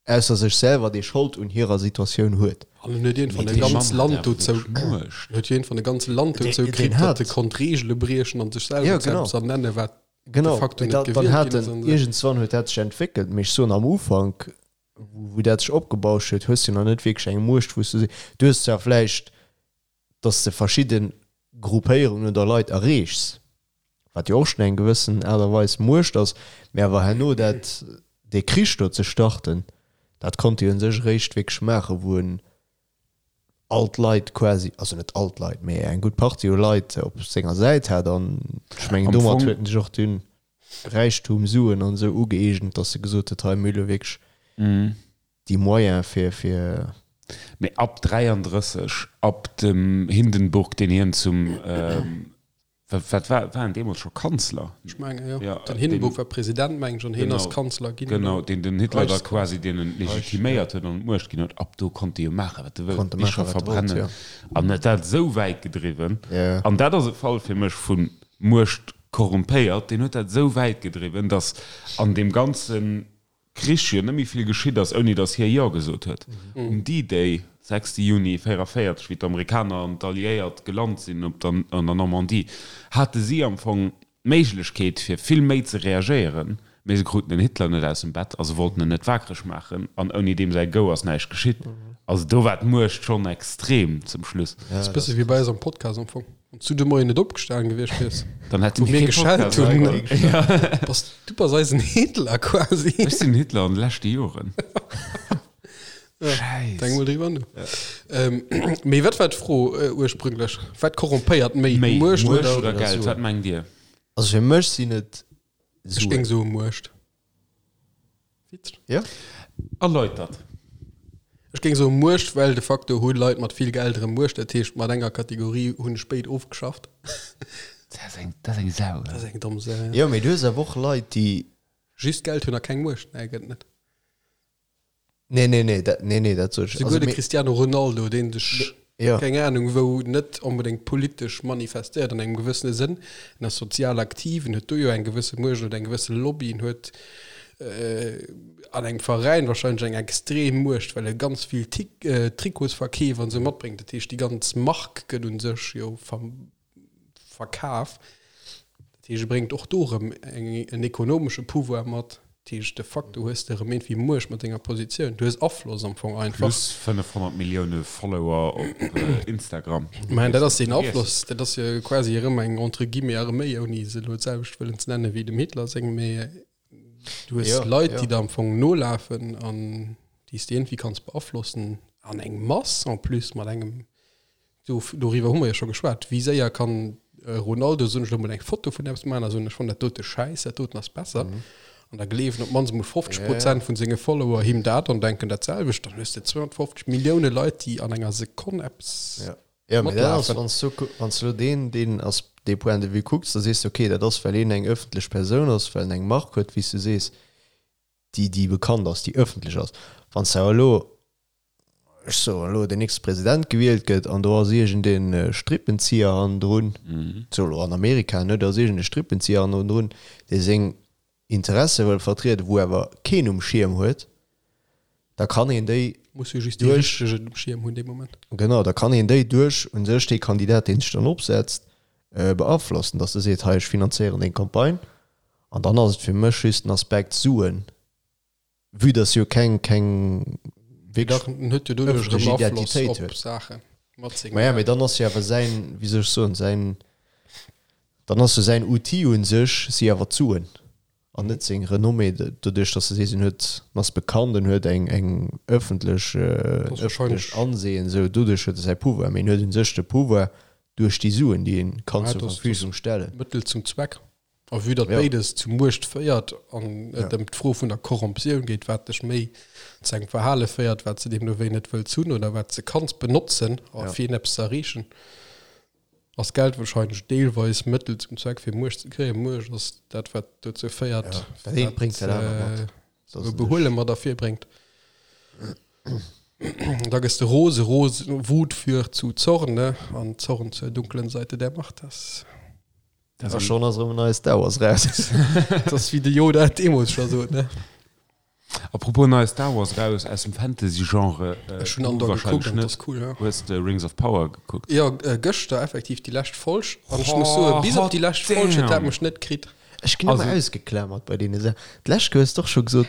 ausser sech selwer, dee Schold un hirer Situatioun huet. An en huet iergendwann Mee e dee ganz Mann hat Land awer dozou, wierklech Muecht. en huet iergendwann e ganze Land Deen- dozou deen kritt, datt hat- e konnt Reegele briechen an sech selwer Ja, zu genau. eppes ernennen, wat de Genau, facto mee net da, dann gewielt hat ginn ass en, an esou. iergendswann huet dat sech entwéckelt. Mee ech soen, am Ufank, wou, wou dat sech opgebauscht huet, hues du nach net wierklech eng Muecht, wou s du se, du hues zwar vläicht, datt s de verschidde Gruppéierungen oder Leit erreechs, wat jo och schonn eng gewëssen Aart a Weis Muecht ass, mee awer herno dat, dee Krich do ze starten, dat konnt hie u sech eréischt wierklech maachen, wou en all d'Leit quasi, also net all d'Leit, mee eng gutt Partie u Leit op senger Säit hat an ech mengen Am domat Fong- huet en sech och dunn Räichtum, Suen an esou ugëeegent, datt e gesot huet, hei mir hu lo wierklech déi Moyene fir, fir. Mee ab 33, ab dem Hindenburg, deen hien zum, wat war, war en deemools scho Kanzler? Ech menge jo. Ja, Den Hindenburg deen- war President, meng ech, an hien ass Kanzler ginn. Genau, deen den Hitler da Reichskanzler. quasi deen en legitiméiert huet an d'Muecht ginn huet. Ab do konnt e jo maachen, wat e wëllt, Konnt e Bicher maachen, wat e wollt, verbrennen. ja. An huet dat esou wäit gedriwwen. Ja. An dat ass e Fall fir mech vu Muecht korrumpéiert. Deen huet dat esou wäit gedriwwen, datt an deem ganze Krich jo net méi vill geschitt ass, ouni datt hie Jo gesot huet. Um D-Day, 6 Juni 44, wéi d'Amerikaner an d'Alliéiert gelant sinn op der an der Normandie, hate si am Fong d'Méiglechkeet fir vill méi ze reagéieren, Mee se kruten den Hitler net aus dem Bett a se wollten en net wakereg maachen an ouni deem säi Go ass näischt geschitt. Also do war d'Muecht schonn extrem zum Schluss. Dat ass bësse wéi bei eis am Podcast am Fong. Wann s du de Moien net opgestanen gewiescht wiers, Dann hätte wou mir mir kee geschellt Podcast hunn, Ja. bass du bass eisen Hitler quasi. Ech sinn Hitler an de leschte Joren. Denk Schäiss. mol driwwer no. Ähm, mee wat war d'Fro äh, ursprünglech? Wat korrumpeéiert méi? Méi Muecht Muecht oder oder Geld? Suen? Wat mengt Dir? Also fir mech sinn et Ech géing Suen. soe Muecht. Witzeg. Ja? Erläutert. Ech géing soe Muecht, well de facto hu Leit mat vill Geld erëm Muecht. Dat heescht, mat enger Kategorie hunn ech béid ofgeschafft. Dat ass eng, dat ass eng Sau. Dat ass eng domm Sau, ja. Jo, mee du hues awer och Leit, déi. Just Geld hunn a keng Muecht? Nee, gëtt net. Nee, nee, nee, dat, nee, nee, dat sot ech. Souguer Also, de mee, Cristiano Ronaldo, deen sech, ja. keng Ahnung wou, net onbedéngt politesch manifestéiert an engem gewëssene Sënn, en ass sozial aktiv, en huet do jo eng gewësse Muecht oder eng gewësse Lobby, en huet an engem Veräin wahrscheinlech eng extrem Muecht, well e ganz vill Tik Trikotsverkeef an esou matbréngt. Dat heescht, déi ganz Mark gëtt un sech jo ver Verkaf. Dat heescht, e bréngt och do erëm eng, en ekonomesche Pouvoir mat. Dat heescht, de facto hues de erëm iergendwéi Muecht mat denger Positioun. Du hues Afloss am Fong einfach. Plus 500 Millioune Follower op Instagram. Mä dat ass deen Afloss, dat ass jo quasi erëm eng entre guillemets Arméi, ouni se elo d'selwecht wëllen ze nennen wéi dem Hitler seng, mä du hues Ja, Leit, ja. déi der am Fong nolafen an déi s de iergendwéi kanns beaflossen an eng Mass en plus mat engem Do, doriwwer hu mer jo scho geschwat. Wéi séier kann e Ronaldo, soen ech elo mol, eng Foto vun eppes maachen a soen, ech fannen dat dote schäiss, dat doten ass besser. An da gleewen op d'mannst emol 50 Prozent vun senge Follower him dat an denken dat selwecht. Dann hues de 250 Millioune Leit, déi an enger Sekonn eppes Ja. Ja, mee dat ass, matlafen. wann s du, wann s du elo deen, deen ass, dee Point de vue kucks, da sees de, okay, dat ass, well een eng ëffentlech Persoun ass, well en eng Mark huet, wéi s du sees, déi, déi bekannt ass, déi ëffentlech ass. Wann s de awer elo ech soen elo, den nächste President gewielt gëtt an do ass iergend e Strippenzieher hannendrun, sou elo an Amerika, ne, do ass iergend e Strippenzieher hannendrun, dee seng Interesse wëll vertrieden, wou awer keen um Schierm huet, da kann een déi Muss jo just dee duerch, Richtegen um Schierm hunn dee Moment. genau, da kann een déi duerch u sech dee Kandidat, dee sech dann opsetzt, beaflossen, datt e seet, hei ech finanzéieren deng Campagne an dann ass et fir mech just den Aspekt Suen. Vue dass jo keng keng wierklech huet jo doduerch ëffentlech erëm Afloss Identitéit op huet. Saache mat sengem Maja, mee Geld. dann ass jo awer säin, wéi soll ech soen, säin, dann ass jo säin Outil un sech si awer d'Suen an net seng Renommée, doduerch dass de sees, en huet, en ass bekannt, en huet eng eng ëffentlech, Dat en ass wahrscheinlech ëffentlecht Ansehen, esou doduerch huet e säi Pouvoir, mee en huet un sech de Pouvoir duerch déi Suen, déi en kann Ja, zur dat ass Verfügung stellen. Mëttel zum Zweck. A vue datt Ja. béides zu Muecht féiert an et Ja. ëm d'Fro vun der Korrumptioun geet, wat dech méi zu engem Verhale féiert, wat s de deemno wéi net wëlls hunn oder wat s de kanns benotzen, a Ja. fir eppes ze erreechen, ass Geld wahrscheinlech deelweis Mëttel zum Zweck, fir Muecht ze kréien. Muecht ass dat, wat dozou féiert, Ja, dat eent bréngt dat anert mat. äh, Dat ass Behuele mat ervirbréngt. Da gëss de rose, rose, Wut führt zu Zorn, ne? An Zorn zur dunklen Seite der Macht. Das Dat A schonn ass erëm en neie Star Wars raus. Dat ass wéi de Yoda et deemools scho sot, ne? Apropos neie Star Wars raus aus dem Fantasy-Genre, Ech hunn du Andor wahrscheinlech gekuckt an net. dat ass cool, ja. Hues de Rings of Power gekuckt? Jo, gëschter effektiv déi lescht Folg an ech muss soen, bis op déi lescht Folg huet dat mech net kritt. Ech ginn ëmmer ausgeklamert bei deene Saachen. D'lescht Kéier hues de och scho gesot,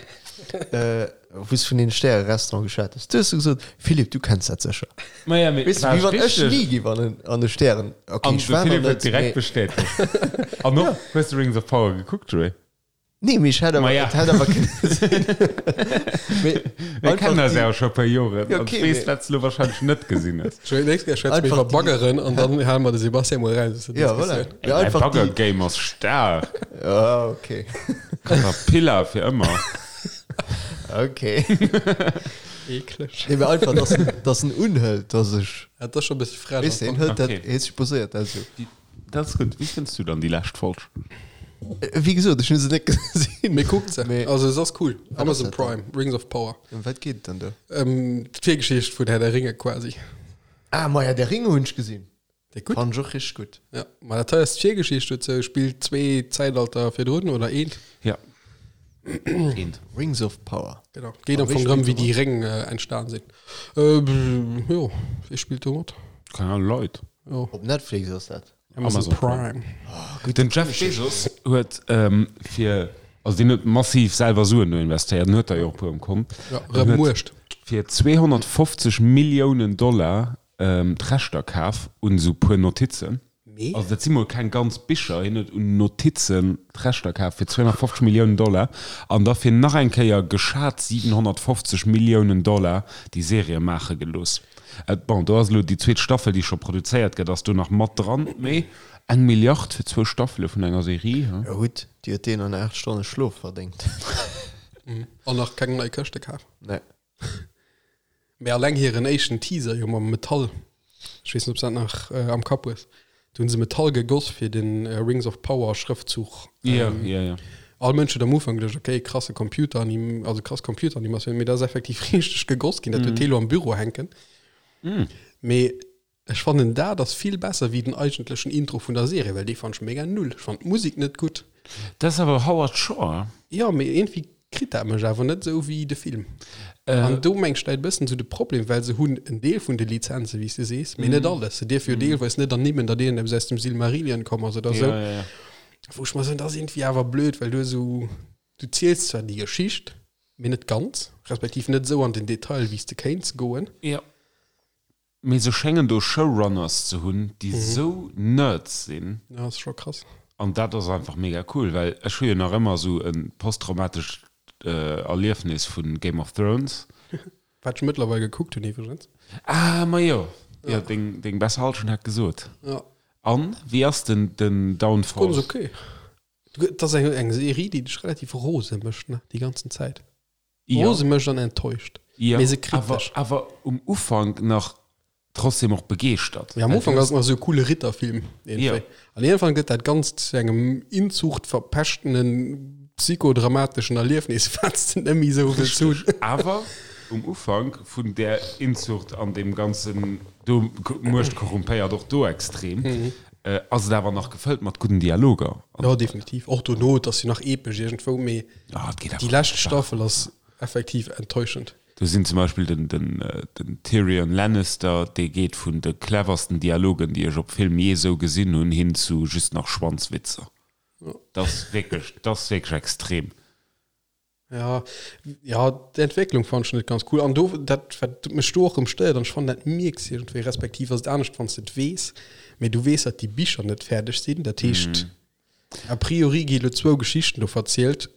wou s de vun deene Stäre-Restaurant geschwat hues, du hues du gesot, Philippe, du kenns dat sécher. Maja, mee Weess de, war wéi wann ech richteg. ni géif an en, an e Stären. Okay, An ech de war nach Philippe huet net, direkt mee bestätegt. An och, hues de Rings of Power gekuckt, Joé? Nee, mee ech hätt awer, Maja. et hätt awer kënne sinn. Mee Mir einfach kennen eis déi, ja scho e puer Joren. Ja, An okay, ech weess, mee wat s du lo wahrscheinlech net gesinn hues. Joé, nächst Kéier schwätze mir einfach iwwer déi, Baggeren an dann hale mer de Sebastian mol raus aus der ja, voilà. Diskussioun. Mee Ey, mäi einfach déi, Bagger-Game ass staark. ja, okay. Caterpillar fir ëmmer. Okay. Eekleg. Nee, mee einfach, dass en, dass en unhëlt, dass ech, Ja, dat ass scho e bësse frech weess de, am en Fong. hëlt dat, Okay. hie supposéiert dat esou. Dat ass gutt. Wéi fënns du dann déi lescht Folg? Wéi gesot, ech hunn se net gesinn. Mee kuckt se. Mee Also se ass cool. wat ass Amazon dat dann? Prime, Rings of Power. Ëm wat geet et dann do? Ähm, d'Virgeschicht vun Herr der Ringe quasi. Ah, ma ja, der Ringe hunn ech gesinn. Déi gutt? Fand ech och richteg gutt. Ja, ma dat hei ass d'Virgeschicht dozou, spillt zwee Zäitalter virdrun oder eent. Ja. Eent. Rings of Power. Genau. Geet A am wie Fong drëm, spillt wéi do déi mat? Réng äh, entstan sinn. Äh, jo, wie spillt do mat? Keine Ahnung, Leit. Jo. Op Netflix ass dat. Amazon Amazon Prime. Prime. Den Jeff Bezos huet ähm, fir. Also deen huet massiv selwer Suen do investéiert, en huet der jo och e puer um Kont. Ja, rëm Muecht. Fir 250 Milliounen Dollar d'Rechter kaf un esou puer Notizen. Mee? Also dat si mol keng ganz Bicher, hien huet un Notizen d'Rechter kaf fir 250 Milliounen Dollar an da fir nach eng Kéier geschat 750 Milliounen Dollar déi Serie maache gelooss. Bon, do ass elo déi zweet Staffel, déi scho produzéiert gëtt, ass do nach mat dran, mee eng Milliard fir zwou Staffele vun enger Serie, he? Jo gutt, déi huet deen an 8 Stonne Schlof verdéngt. An nach keng nei Këschte kaf. Nee. Mee alleng hiren éischten Teaser jo mam Metall, ech weess net, ob s dat nach am Kapp hues, do hunn se Metall gegoss fir den Rings of Power Schrëftzuch. Jo, jo, jo. All Mënsch huet am Ufank geduecht, okay, krasse Computer, also krass Computeranimatioun, mee dat ass effektiv richteg gegoss ginn, dat huet hee lo am Büro hänken. Mee Ech fannen daat ass vill besser wéi den eigentlechen Intro vun der Serie, well dee fannt ech mega null. Ech fannt d'Musik net gutt. Dat ass awer Howard Shore. Jo, mee iergendwéi kritt dat mech awer net esou wéi de Film. An do meng ech läit e bëssen esou de Problem, well se hunn en Deel vun de Lizenzen, wéi s de sees, mee net alles. Se dierfe jo deelweis net ernimmen, datt iergendeppes aus dem Silmarillion komm ass oder esou. Wou ech mer soen, dat ass iergendwéi awer blöd, well du esou, du ziels zwar déi Geschicht, mee net ganz, respektiv net esou an den Detail, wéi s de kéints goen. Mee se schéngen do Showrunners ze hunn, déi sou Nerds sinn. Ja, ass scho krass. An dat ass einfach mega cool, well ech hu jo nach ëmmer sou e posttraumatescht Erliefnis vu Game of Thrones. Wat ech mëttlerweil gekuckt hunn iwwregens. Ah, majo, jo, deng, deng besser Hallschent hat gesot. Ja. An, wéi ass den, den Downfall? Ganz ok. Et ass eng, eng Serie, déi dech relativ rose mécht, ne, déi ganzen Zäit. Ja. Rose mécht an enttäuscht. Ja, Mee se kritt awer, dech. awer um Ufank nach trotzdem och begeeschtert. Ja, am Ufank ass et nach esou e coole Ritterfilm Ja. iergendwéi. An iergendwann gëtt dat Ganzt zu engem inzuchtverpeschtenen, psychodramateschen Erliefnis, wat s de net méi esou wëlls hunn. Richteg. Awer um Ufank vun där Inzucht an deem ganzen do, Muecht korrumpéiert och do extrem, ass et awer nach gefëllt mat gudden Dialoger. Jo, definitiv. Och dono, et ass jo nach epesch iergendwou, mee Ah, et geet déi awer lescht Staffel ass effektiv enttäuschend. Do sinn zum Beispill den, den, den Tyrion Lannister, dee geet vun de cleversten Dialogen, déi ech op Film jee sou gesinn hunn, hin zu just nach Schwanzwitzer. Dat ass wierklech, dat ass wierklech extrem. Ja, ja, d'Entwécklung fand ech net ganz cool. An do, dat, wat mech do och erëm stéiert, an ech fannen, dat mierks de iergendwéi, respektiv ass et anescht, wann s de et weess, mee du weess, datt déi Bicher net fäerdeg sinn. Dat heescht, a priori gi lo zwou Geschichten do verzielt.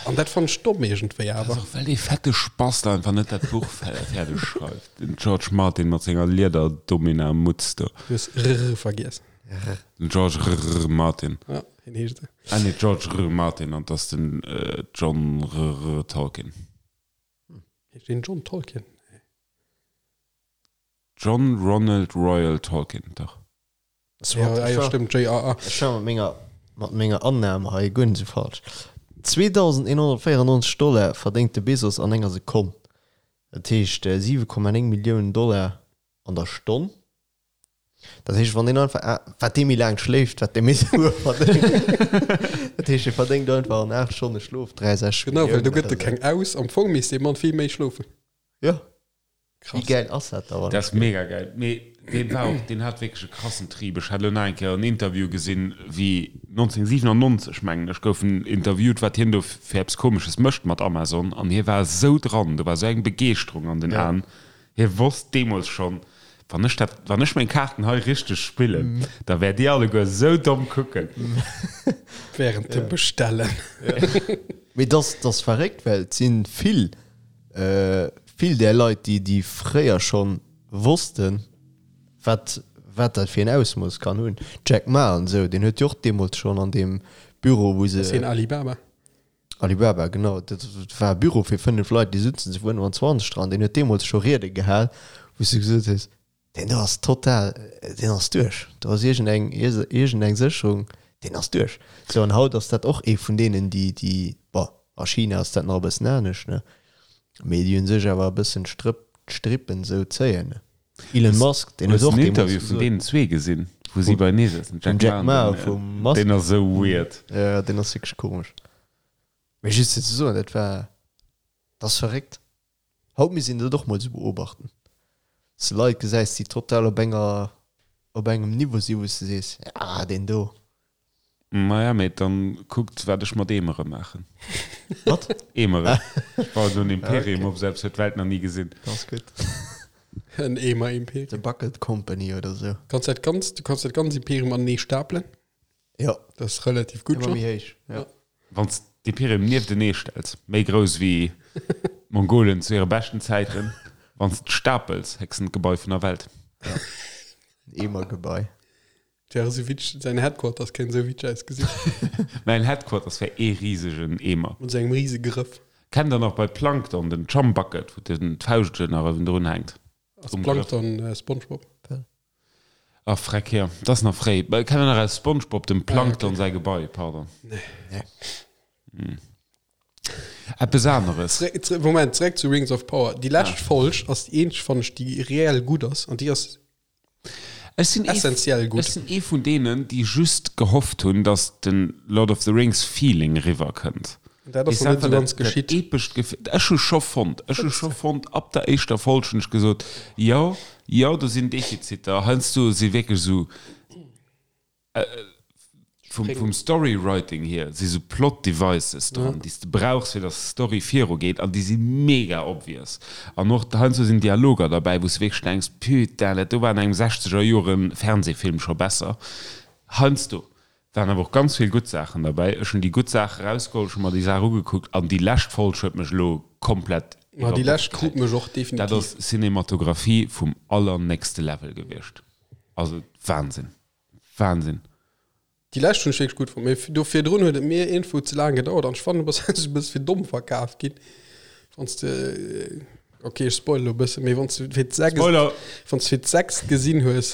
An dat fannen ech domm iergendwéi Dat ass awer. och, well dee fette Spast einfach net dat Buch fäerdeg schreift, den George Martin mat senger Lieder-Domina-Mutz do. Du hues rr vergiess. Den George rr Martin. Ja, hien heescht esou. Ah nee, George rr Martin an 't ass den John rr Tolkien. Heescht deen John Tolkien? Nee. John Ronald Reuel Tolkien, dach. Ja, ah, jo, stëmmt, JRR. Ech war mat menger, mat menger Annahme hei guer net esou falsch. 2.194 Dollar verdéngt de Bezos an enger Sekonn. Dat heescht 7,9 Milliounen Dollar an der Stonn. Dat heescht, wann deen einfach, wat dee méi laang schléift, wat dee méi Sue verdéngt. Dat heescht, e verdéngt einfach an 8 Stonne Schlof 63 Genau, well do Milliounen gëtt e oder keng esou. aus. Am Fong misst dee Mann vill méi schlofen. Jo. Krass. Wéi gäil ass dat da, wann Dat ass mega gäil. Mee deen war och, deen hat wierklech e krassen Trib. Ech hat elo nach eng Kéier en Interview gesinn, wéi 1997, mengen ech, gouf en interviewt, wat hien do fir eppes Komesches mécht mat Amazon. An hie war esou dran, do war esou eng Begeeschterung an den Ja. Aen. Hie wosst deemools schonn, Wann ech dat, wann ech meng Kaarten hei richteg spillen, da wäert Dir alleguer esou domm kucken. Während dem Bestellen. Mee dass, dass verréckt, well et si vill, vill där Leit, déi, déi fréier schonn wossten, wat, wat dat fir en Ausmooss kann hunn. Jack Ma an esou, deen huet jo och deemools schonn an deem Büro, wou se. Ass hien Alibaba? Alibaba, genau. Dat war e Büro fir 5 Leit, déi sutzen zu 25 dran. Deen huet deemools scho Riede gehal, wou s du gesot hues, deen do ass total, deen ass duerch. Do ass iergendeng, iergendeng Sécherung, deen ass duerch. Sou, an haut ass dat och ee vun deenen, déi, déi, bon, a China ass dat nach e bëssen anescht, ne, mee déi u sech awer e bëssen d'Strëpp, d'Strippen esou zéien, ne. Elon Musk, deen Hues huet och den deemools Interview vun gesot. deenen zwee gesinn, wou si beienee sëtzen, Vum Jack Ma a vum Musk? Deen ass esou weird. Jo, deen ass wierklech komesch. Mee just fir ze soen, dat war, dat ass verréckt. Haut misst een dat och mol esou beobachten, dass de Leit gesäis, déi total op enger, op engem Niveau sinn, wou s de sees, ah, deen do. Maja, mee dann kuckt wat ech mat Eemere maachen. Wat? Eemere. Ech bauen do en Imperium op, selbst huet d'Welt nach ni gesinn. Dat ass gutt. En Eemer-Imperium. The Bucket Company oder sou. Kanns dat ganzt, du kanns dat ganz Imperium anenee stapelen. Jo. Dat ass relativ gutt Ëmmer schonn. méi héich, jo. Wann s d'Imperium nieftenee stells, méi grouss wéi d'Mongolen zu hire beschten Zäiten, wann s d'stapels, héchsten d'Gebai vun der Welt. En Eemergebai. Wär esou witzeg, säin Headquarters kéint esou witzeg ausgesinn. Mäin Headquarters wär ee risegen Eemer. Mat esou engem rise Grëff. Kennt der nach bei Plankton den Chumbucket, wou den d'Fauscht nach ewendrun hänkt? Ass Plankton Spongebob? Ach freck, jo, dat ass nach fréi. Kennt der nach aus Spongebob dem Plankton säi Gebai? Pardon. Nee. Eppes aneres. Moment, zeréck zu Rings of Power. Déi lescht Folg ass déi eenzeg, fannen ech, déi reell gutt ass an déi ass Ech sinn ee, Essentiell gutt. ech sinn ee vun deenen, déi just gehofft hunn, datt de Lord of the Rings Feeling riwwer kënnt. Dat ass Weess noch net einfach esou ganz dat, dat geschitt. epescht Gefill. Ech hu scho fonnt, ech hu scho fonnt, ab der éischter Folg hunn ech gesot, jo, jo, do sinn Defiziter, heiansdo si wierklech esou, Vum, vum Storywriting hier si sou Plot Devices dran, déi s de brauchs, fir dass d'Story virugeet, an déi si mega obvious. An och heiansdo sinn Dialoger derbäi, wou s de wierklech denks, Putain, dat do war an engem sechzeger Jore Fernsehfilm scho besser. Heiansdo waren awer och ganz vill gutt Saachen derbäi. Ech hunn déi gutt Saache rausgeholl, ech hu mer déi Saach ugekuckt, an déi lescht Folg huet mech elo komplett Ma déi iwwer lescht Bord krut geheit. mech och Dat definitiv. ass Cinematographie vum allernächste Level gewiescht. Also Wahnsinn. Wahnsinn. Déi lescht hunn ech wierklech gutt fonnt, mee do virdrun huet et mir iergendwou ze laang gedauert an ech fannen, du bass heiansdo e bësse fir domm verkaf ginn, wann s de, ok ech spoile lo e bëssen, mee wann s de fir d'sechst, Spoiler! wann s de fir d'sechst gesinn hues,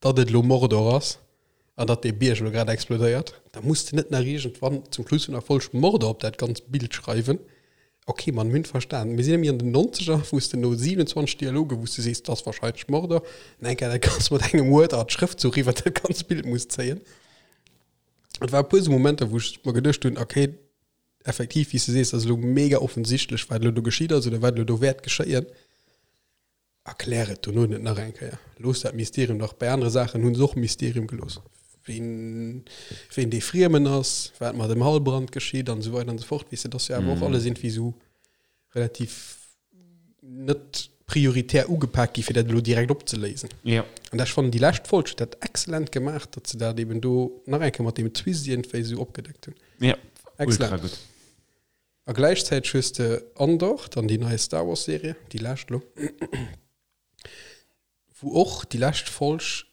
datt et elo Mordor ass an datt dee Bierg elo grad explodéiert, da muss de net nach iergendwann zum Schluss vun der Folg Mordor op dat ganzt Bild schreiwen. Ok, man, mir hunn verstan. Mir sinn nämlech an den Nonzeger, wou s de no 27 Dialogen, wou s de sees, dat ass wahrscheinlech Mordor, an eng Kéier dat Ganzt mat engem Word-Art Schrëftzuch iwwer dat ganzt Bild muss zéien. Et war e puer esou Momenter, wou ech mer geduecht hunn, ok, effektiv, wéi s de sees, dat ass elo mega offensichtlech, wat elo do geschitt ass oder wat elo do wäert geschéien. Erklär et dono net nach eng Kéier. Looss dat Mysterium dach. Bei anere Saachen hu se och Mysterium gelooss. Ween, ween dee Friemen ass, wat mat dem Halbrand geschitt an esou weider an esou fort. Weess de, dat ass jo awer och alles iergendwéi esou relativ net prioritär ugepak gi fir dat elo direkt opzeléisen. Ja. An ech fannen déi lescht Folg huet dat excellent gemaach, datt se dat eben do nach eng Kéier mat deem Twist iergendwéi esou opgedeckt hunn. Ja, ultra Excellent. gutt. A gläichzäiteg hues de Andor, dann déi nei Star Wars Serie, déi lescht elo, wou och déi lescht Folg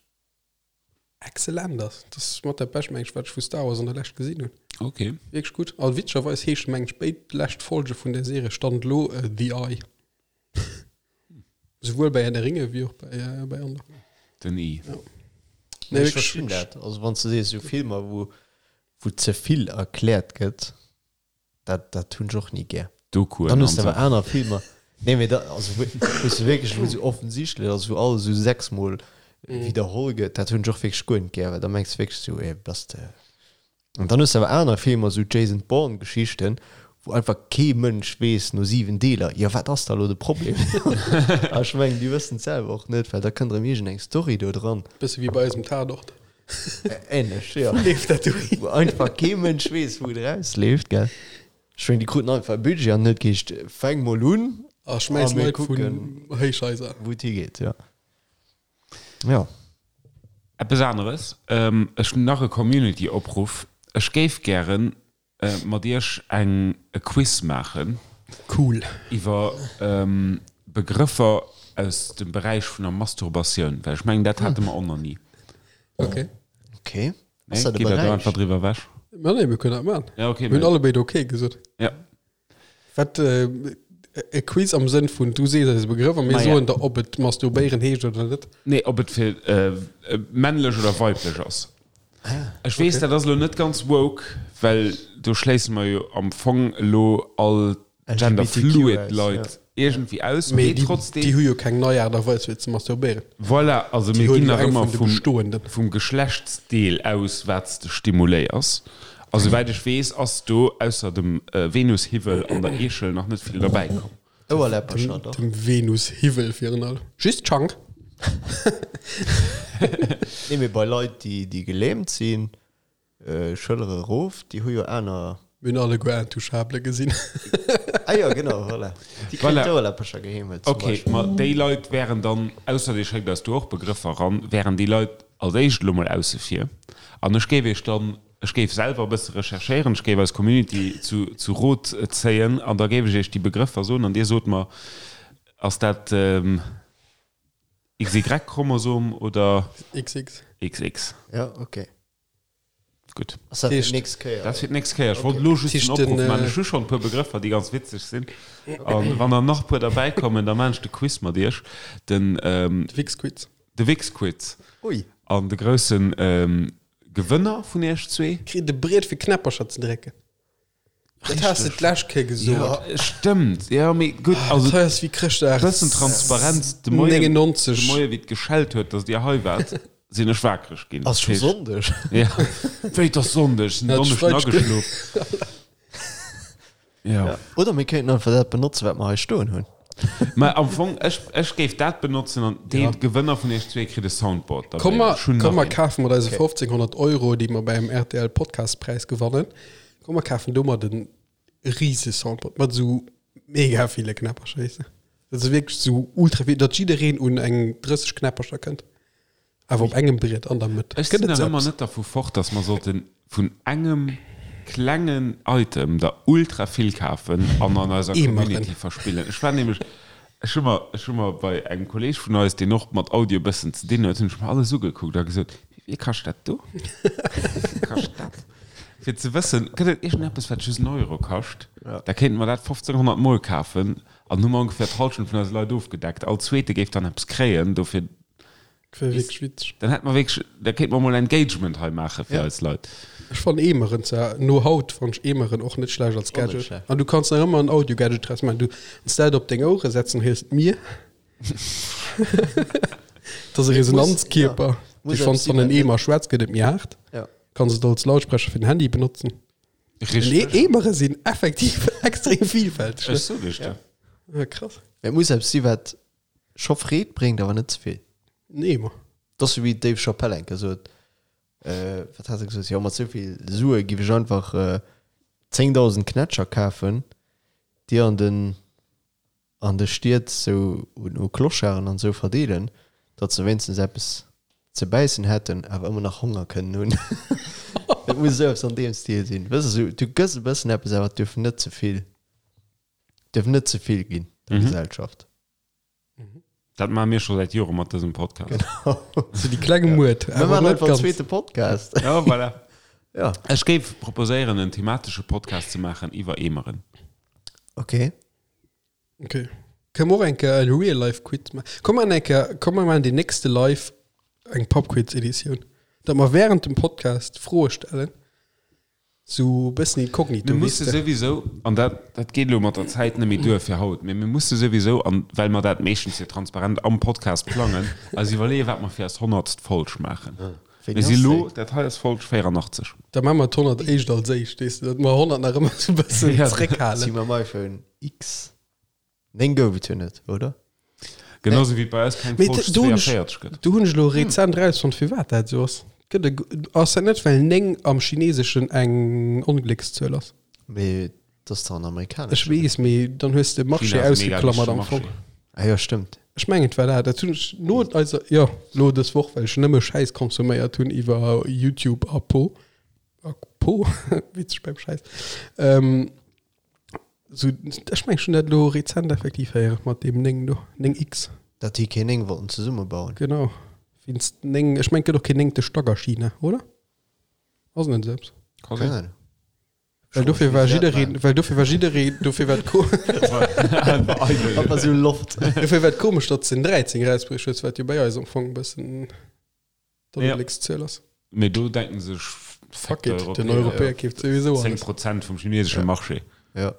excellent ass. Dat ass mat dat bescht, meng ech, wat ech vu Star Wars an der Lescht gesinn hunn. Okay. Wierklech gutt. A witzegerweis heesche meng ech béid lescht Folge vun där Serie Stand elo The Eye. Souwuel bei Herr der Ringe wéi och bei, bei Andor. Den I. Ja. Nee, Nee, ech wierklech, verstinn wierklech. dat. Also wann s de sees, esou Filmer, wou, wou ze vill erkläert gëtt, Dat, dat hunn ech och ni gär. Dokuen Dann hues de an awer sou. aner Filmer. Nee, mee da, also wou wou se wierklech, wou sou offensichtlech ass, wou alles sou sechsmol widderholl gëtt, dat hunn ech och wierklech guer net gär, well da mengs de wierklech sou, ey, bass de. An dann hues de awer aner Filmer, sou Jason Bourne Geschichten, wou einfach kee Mënsch weess no 7 Deeler, jo wat ass da lo de Problem? A ech mengen, déi wëssen et selwer och net, well da kënnt erëm iergendeng Story do dran. Bësse wéi bei eisem Tatort. Ähnlech, ja. Wou leeft dat dohin? Wou einfach kee Mënsch weess, wou et erausleeft, gell? Ech mengen, déi kruten einfach e Budget an huet geheescht, fänk mol un A schmäiss a mir Leit vun kucken, Héichhaiser. wou et higeet, ja. Ja. Eppes aneres, ech hunn nach e Community-Opruff, Ech géif gären mat iech eng e Quiz maachen. Cool. Iwwer Begrëffer aus dem Beräich vun der Masturbatioun, well ech mengen dat hate mer och nach ni. Ok. Ok. Nee, gitt der do einfach driwwer ewech? Ma nee, mir kënnen dat maachen. Ja, ok. Mir hunn allebéid ok gesot. Ja. Wat, e Quiz am Sënn vun du sees eis e Begrëff a mir Maja. soen der, ob et masturbéieren heescht oder net? Nee, ob et fir männlech oder weiblech ass. Ech weess, dat ass elo net ganz woke, well do schléisse mer jo am Fong elo all genderfluid Leit iergendwéi aus, Mee mee déi, trotzdem. déi hu jo keng nei Aart a Weis fir ze masturbéieren. Voilà, also Déi mir huelen ginn jo nach eng ëmmer vun de vum, bestoenden. vum Geschlechtsdeel aus, wat s de stimuléiers. A souwäit ech weess, ass do ausser dem Venushiwwel an der Eechel nach net vill derbäi komm. Ouerläppercher, dach. Dem Venushiwwel virun allem. Just d'Schank. Nee, mee bei Leit, déi, déi gelähmt sinn. Schëllere erof, déi hu jo aner. Mir hunn alleguer Intouchable gesinn. Ah jo, genau, voilà. Déi kréien Voilà. d'Ouerläppercher geheemelt zum Ok, Beispill. ma déi Leit wären dann, ausser Dir schéckt eis do och Begrëffer eran, wären déi Leit als éischt elo mol ausse vir. An ech géif Iech dann, ech géif selwer e bësse recherchéieren, ech géif eis Community zu, zu Rot zéien an da géif ech Iech déi Begrëffer soen an Dir sot mer, ass dat XY-Chromosom oder XX. XX? Ja, ok. Gutt. Ass dat fir d'nächst Kéier? Dat ass fir d'nächst Kéier. Ech wollt elo just den Opruff maachen. Ech hu schonn e puer Begrëffer, déi ganz witzeg sinn. A wann der nach e puer derbäikommen, da maachen ech de Quiz mat iech. Den. De Wix-Quiz. De Wix-Quiz. Ui. An de grousse Gewënner vun iech zwee. Kritt e Briet fir Knäppercher ze drécken. Dat has de d'lescht Kéier gesot. Ja, stëmmt. Ja, mee gutt, also. Dat hei ass wéi Chrëschtdag. Bëssen Transparenz. De Moien, 99. de Moien, wéi et geschellt huet, datt Dir hei waart, sinn ech wakereg ginn. Ass scho Sonndeg? Ja. Wéi, et ass Sonndeg? Ech sinn Ja, Donneschden d'Schwein- ageschlof. Ja. Oder mir kéinten einfach dat benotzen, wat mer hei stoen hunn. Mä am Fong, ech, ech géif dat benotzen an dee Gewënner vun iech zwee kritt e Soundboard derbäi. Komm mer, Ech hunn komm nach mer een. kafen mat eise 1500 Euro, déi mer beim RTL Podcastpräis gewannen, komm mer kafen domat en rise Soundboard mat esou mega ville Knäppercher, weess de. Dat ass wierklech esou ultra vill, datt jiddereen un eng 30 Knäppercher kënnt. Awer op engem Briet an der Mëtt. Ech sinn nach ëmmer net dervu fort, dass mer sollte vun engem klengen Item der ultra vill kafen an an eiser Community verspillen. Ech war nämlech, ech hu mer, ech hu mer bei engem Kolleeg vun eis, deen och mat Audio e bëssen ze dinn huet, hunn ech mer alles ugekuckt a gesot, Wéi vill kascht dat do? Wéi vill kascht dat? Fir ze wëssen, gëtt et iergendeppes, wat just en Euro kascht? Da kéinte mer dat 1500 Mol kafen an hu mer ongeféier d'Hallschent vun eise Leit ofgedeckt. All Zweete géif dann eppes kréien dofir. Wär wierklech witzeg. Dann hätt mer wierklech, da kéint mer mol Engagement hei maache fir eis Leit. Ech fannen Eemeren zwar, no haut fannen ech Eemeren och net schlecht als Och net Gadget. schlecht. An du kanns nach ëmmer en Audio-Gadget draus maachen. Du kanns dat op deng Ouere setzen, héiers d'Mier. Dat ass e Resonanzkierper. Ja, muss Dee wann eppes s an en sinn, Eemer schwätz, gëtt et méi haart. Ja. Kanns et als Lautsprecher fir den Handy benotzen. Richteg. Eemere sinn effektiv extrem vielfälteg. Ech sot iech dat. Ja, krass. Et muss eppes si wat scho Freed bréngt, awer net ze vill. En Eemer. Dat ass wéi Dave Chappelle eng Kéier sot, wat hat e gesot, jo mat souvill Sue giff ech einfach 10.000 Knätscher kafen, déi an den an de Stied sou un u Clocharden an sou verdeelen, datt se wéinstens eppes ze bäissen hätten, awer ëmmer nach Honger kënnen hunn. Et muss esou eppes an deem Stil sinn, wëss de, sou du gëss e bëssen eppes, awer et duerf net ze vill, duerf net ze vill ginn der Gesellschaft. Dat maache mir scho säit Jore mat dësem Podcast. So déi kleng Muert. Mir maachen einfach en zweete Podcast. Ja, voilà. Ja. Ech géif proposéieren, en thematesche Podcast ze maachen iwwer Eemeren. Okay. Okay. Kënne mer och eng Kéier e Real-Life-Quiz maachen? Komm mer eng Kéier, komm mer maachen déi nächste Live eng Pub-Quiz-Editioun. Datt mer während dem Podcast Froe stellen. Sou bëssen inkognito, Mir weess musse de. souwisou, an dat, dat geet elo mat der Zäit net méi duer fir haut, mee mir musse souwisou, an well mer dat meeschtens jo transparent am Podcast plangen, eis iwwerleeën, wat mer fir eis honnertst Folg maachen. Wéini Mir si ass elo, déi? dat hei ass Folg 84. Da maache mer d'honnert éischt als éischt, weess de, datt mer 100 nach ëmmer sou bëssen Ja. Si zréckhalen. mam iPhone X 9 gouf et jo net, oder? Genau sou wéi et bei eis keng Mee Folg do hunn ech- 42 gëtt. Do hunn ech elo rezent rausfonnt, firwat dat esou ass. Gëtt e, ass dat net, well 9 am Chineseschen eng Ongléckszuel ass? Mee dat ass dach an amerikanesch. Ech weess, mee dann hues de Marché China ass mega ausgeklammert am wichtege Fong. Marché. Ah jo, stëmmt. Ech mengen et war dat. Dat hunn ech no eiser, jo, lo dës Woch, well ech nëmme Schäiss konsuméiert hunn iwwer YouTube a Po. A Po, witzeg beim Schäiss. Ähm, So, ech meng schon dat lo rezent effektiv héieren mat deem 9 do, 9X. Dat déi keen 9 wollten zesummebauen. Genau. Wéinst 9, ech meng et gëtt och keen néngte Stack a China, oder? Ass net esou eppes? Ka Keng sinn. Ahnung. Well dofir war jiddereen, well dofir war jiddereen, dofir war et ko Einfach sou Loft. dofir war et komesch, datt se den 13 erausbruecht huet, wat jo bei eis am Fong e bëssen d'Ongléckszuel ass. Mee do denken sech, Fuck it, den Europäer keeft souwisou 10 alles. Prozent vum chinesesche Marché. Ja.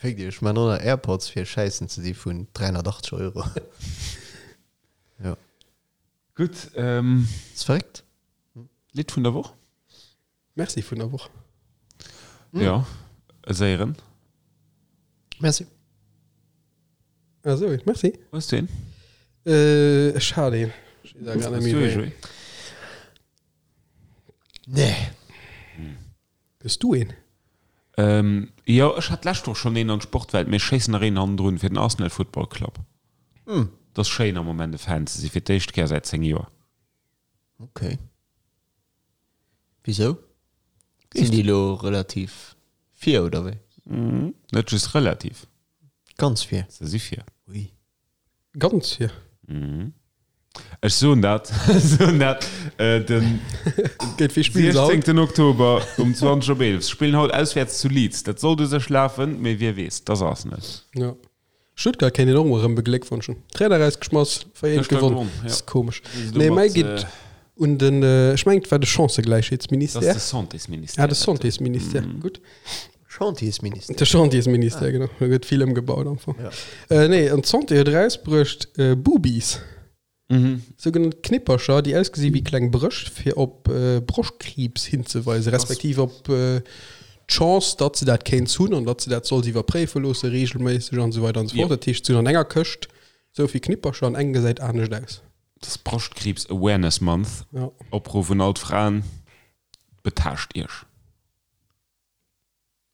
Féck Iech, ech man och nach Airpods fir schäissen ze di vun 380 Euro. Ja. Gutt, ähm. Ass verréckt. Lidd vun der Woch? Merci vun der Woch. Ja, e séieren. Merci. Ah sou, merci. Hues du een? Äh, ech hat een. Ech weess awer grad net Hues méi du ee, wéi. Joé? Nee. Hues du een? Jo, ech hat d'lescht Woch schonn een an d'Sportwelt, mee ech schéissen nach een hannendrun fir den Arsenal Football Club. Et ass schéin am Moment e Fan ze si fir d'éischt Kéier säit 10 Joer. Ok. Wisou? Sinn déi elo relativ vir oder wéi? Net just relativ. Ganz vir. Se si vir. Ui. Ganz vir. Ech soen dat, soen dat, den Géint wie spillen se haut? 16. Oktober um 20 op 11. Se spillen haut auswäerts zu Leeds. Dat sollt u sech lafen, mee wie weess, et ass Arsenal. Ja. Stuttgart kéint een och mol erëm begléckwonschen. Trainer erausgeschmass, 4-1 Gëschter gewonn. gewonnen, ja. Ass komesch. Wéi se Nee, domat, mäi geet un den, ech mengen et war de Chancëgläichheetsministère. Dat ass de Santésministère. Ah, de Santésministère, gutt. Chantiersministère. De Chantiersministère, genau. Do gëtt vill ëmgebaut am Fong. Ja. Äh, nee, an d'Santé huet erausbruecht äh, Boobies. Mhm. Sougenannt Knippercher, déi ausgesi wéi kleng Brëscht, fir op äh, Broschtkriibs hinzeweisen, respektiv op äh, d'Chance, datt se dat kéints hunn an datt se dat solls iwwerpréife loosse reegelméisseg an esou weider an esou fort. Jo. Dat heescht, se hunn an enger Këscht esou vill Knippercher an eng gesäit anescht aus. Dat ass Broschtkriibs Awareness Month. Ja. Opruff un all d'Fraen, Betaascht iech.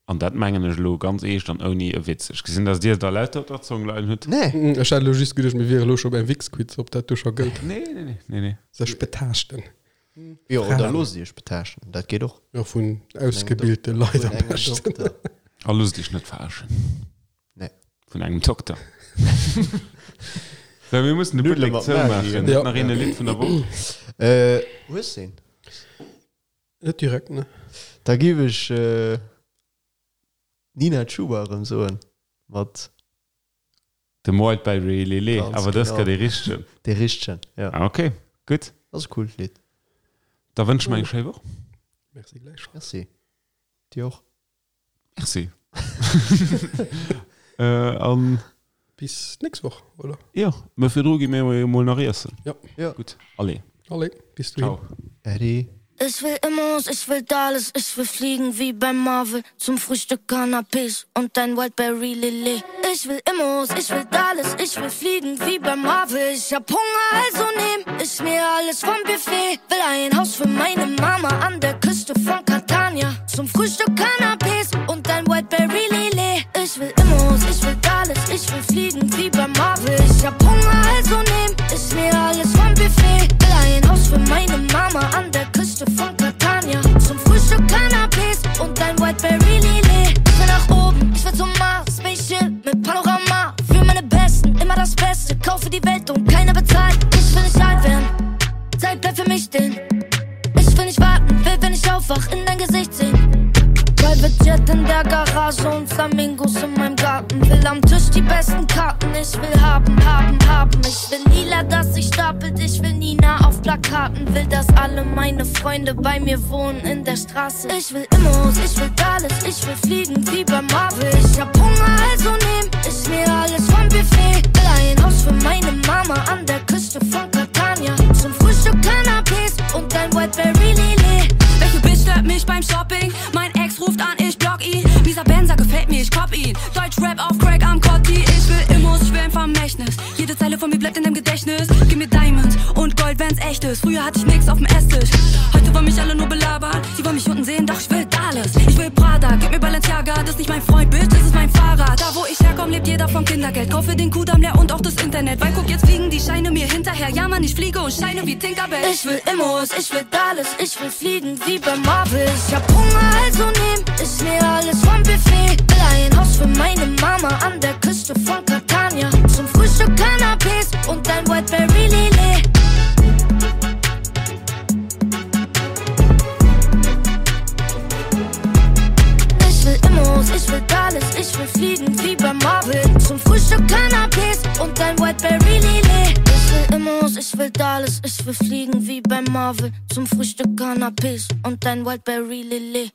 An dat mengen ech elo ganz eescht an ouni e Witz. Ech gesinn, dass Dir der lauter op der Zong leien hutt. Nee. Ech hat elo just geduecht, mir wiere elo scho beim Wix-Quiz, ob dat do scho gëllt. Nee, nee, nee, nee, nee. Sech betaaschten. Jo, oder loosst Iech betaaschten, dat geet och. Jo, vun ausgebilte Leit am beschten. Dokter. A loosst Iech net verarschen. Nee. Vun engem Dokter. So, mir mussen de Nuddele Buttek mat zoumaachen. Maggi. Huet nach een e Lidd vun der Woch? Äh, hues de een? Net direkt, ne. Da giff ech Nina Chuba erëm soen mat. Dem Wildberry Lillet, Ganz awer dës genau. Kéier dee richtegen. Dee richtegen, jo. Ah, ok, gutt. Ass e coolt Lidd. Da wënsche mer eng schéi Woch. Merci gläichfalls. Merci. Dir och. Merci. An. Bis d'nächst Woch, oder? Jo, mä virdru gi mir jo mol nach iessen. Jo. Jo. Gutt, allez. Allez, bis dohin. Ciao. Äddi. Ech will Immos, ich will Dallas, ich will fliegen wie beim Marvel Zum Frühstück Canapés und ein Wildberry Lillet Ich will Immos, ich will Dallas, ich will fliegen wie beim Marvel Ich hab Hunger, also nehm ich mir alles vom Buffet Will ein Haus für meine Mama an der Küste von Catania Zum Frühstück Canapés und ein Wildberry Lillet Ich will Immos, ich will Dallas, ich will fliegen wie beim Marvel Ich hab Hunger, also nehm ich mir alles vom Buffet Will ein Haus für meine Mama an der Küste von Catania Zum Frühstück Canapés und ein Wildberry Lillet Ich will nach oben, ich will zum Mars, Spaceship mit Panorama Für meine Besten, immer das Beste, kaufe die Welt und keiner bezahlt Ich will nicht alt werden, Zeit bleibt für mich stehen Ich will nicht warten, will, wenn ich aufwach, in dein Gesicht sehen Private Jet in der Garage und Flamingos in meinem Garten Will am Tisch die besten Karten, ich will haben, haben, haben Ich will lila, dass sich stapelt, ich will Nina auf Plakaten Will, dass alle meine Freunde bei mir wohnen in der Straße Ich will Immos, ich will alles, ich will fliegen wie bei Marvel Ich hab Hunger, also nehm ich mir alles vom Buffet Will ein Haus für meine Mama an der Küste von Catania Zum Frühstück Canapés und ein Wildberry Lillet Welche Bitch stört mich beim Shopping? Mein Ex ruft an, ich block ihn. Mieser Benzer gefällt mir, ich cop ihn. Deutsch Rap auf Crack am Kotti. Ich will Immos, ich will ein Vermächtnis. Jede Zeile von mir bleibt in deinem Gedächtnis. Gib mir Diamonds und Gold, wenn's echt ist. Früher hatte ich nix auf dem Esstisch. Heute wollen mich alle nur belabern. Sie wollen mich unten sehen, doch ich will alles. Ich will Prada, gib mir Balenciaga. Das ist nicht mein Freund, Bitch, das ist mein Fahrrad. Da wo ich herkomm, lebt jeder vom Kindergeld. Kaufe den Kudamm leer und auch das Internet. Weil guck, jetzt fliegen die Scheine mir hinterher. Ja, Mann, ich fliege und scheine wie Tinkerbell. Ich will Immos, ich will alles, ich will fliegen wie bei Marvel. Ich hab Hunger, also nehm ich mir alles vom Buffet. Will ein Haus für meine Mama an der Küste von Catania. Zum Frühstück Canapés und ein Wildberry Lillet. Ich will Immos, ich will alles, ich will fliegen wie bei Marvel. Zum Frühstück Canapés und ein Wildberry Lillet. Ich will Immos, ich will alles, ich will fliegen wie bei Marvel. Zum Frühstück Canapés und ein Wildberry Lillet.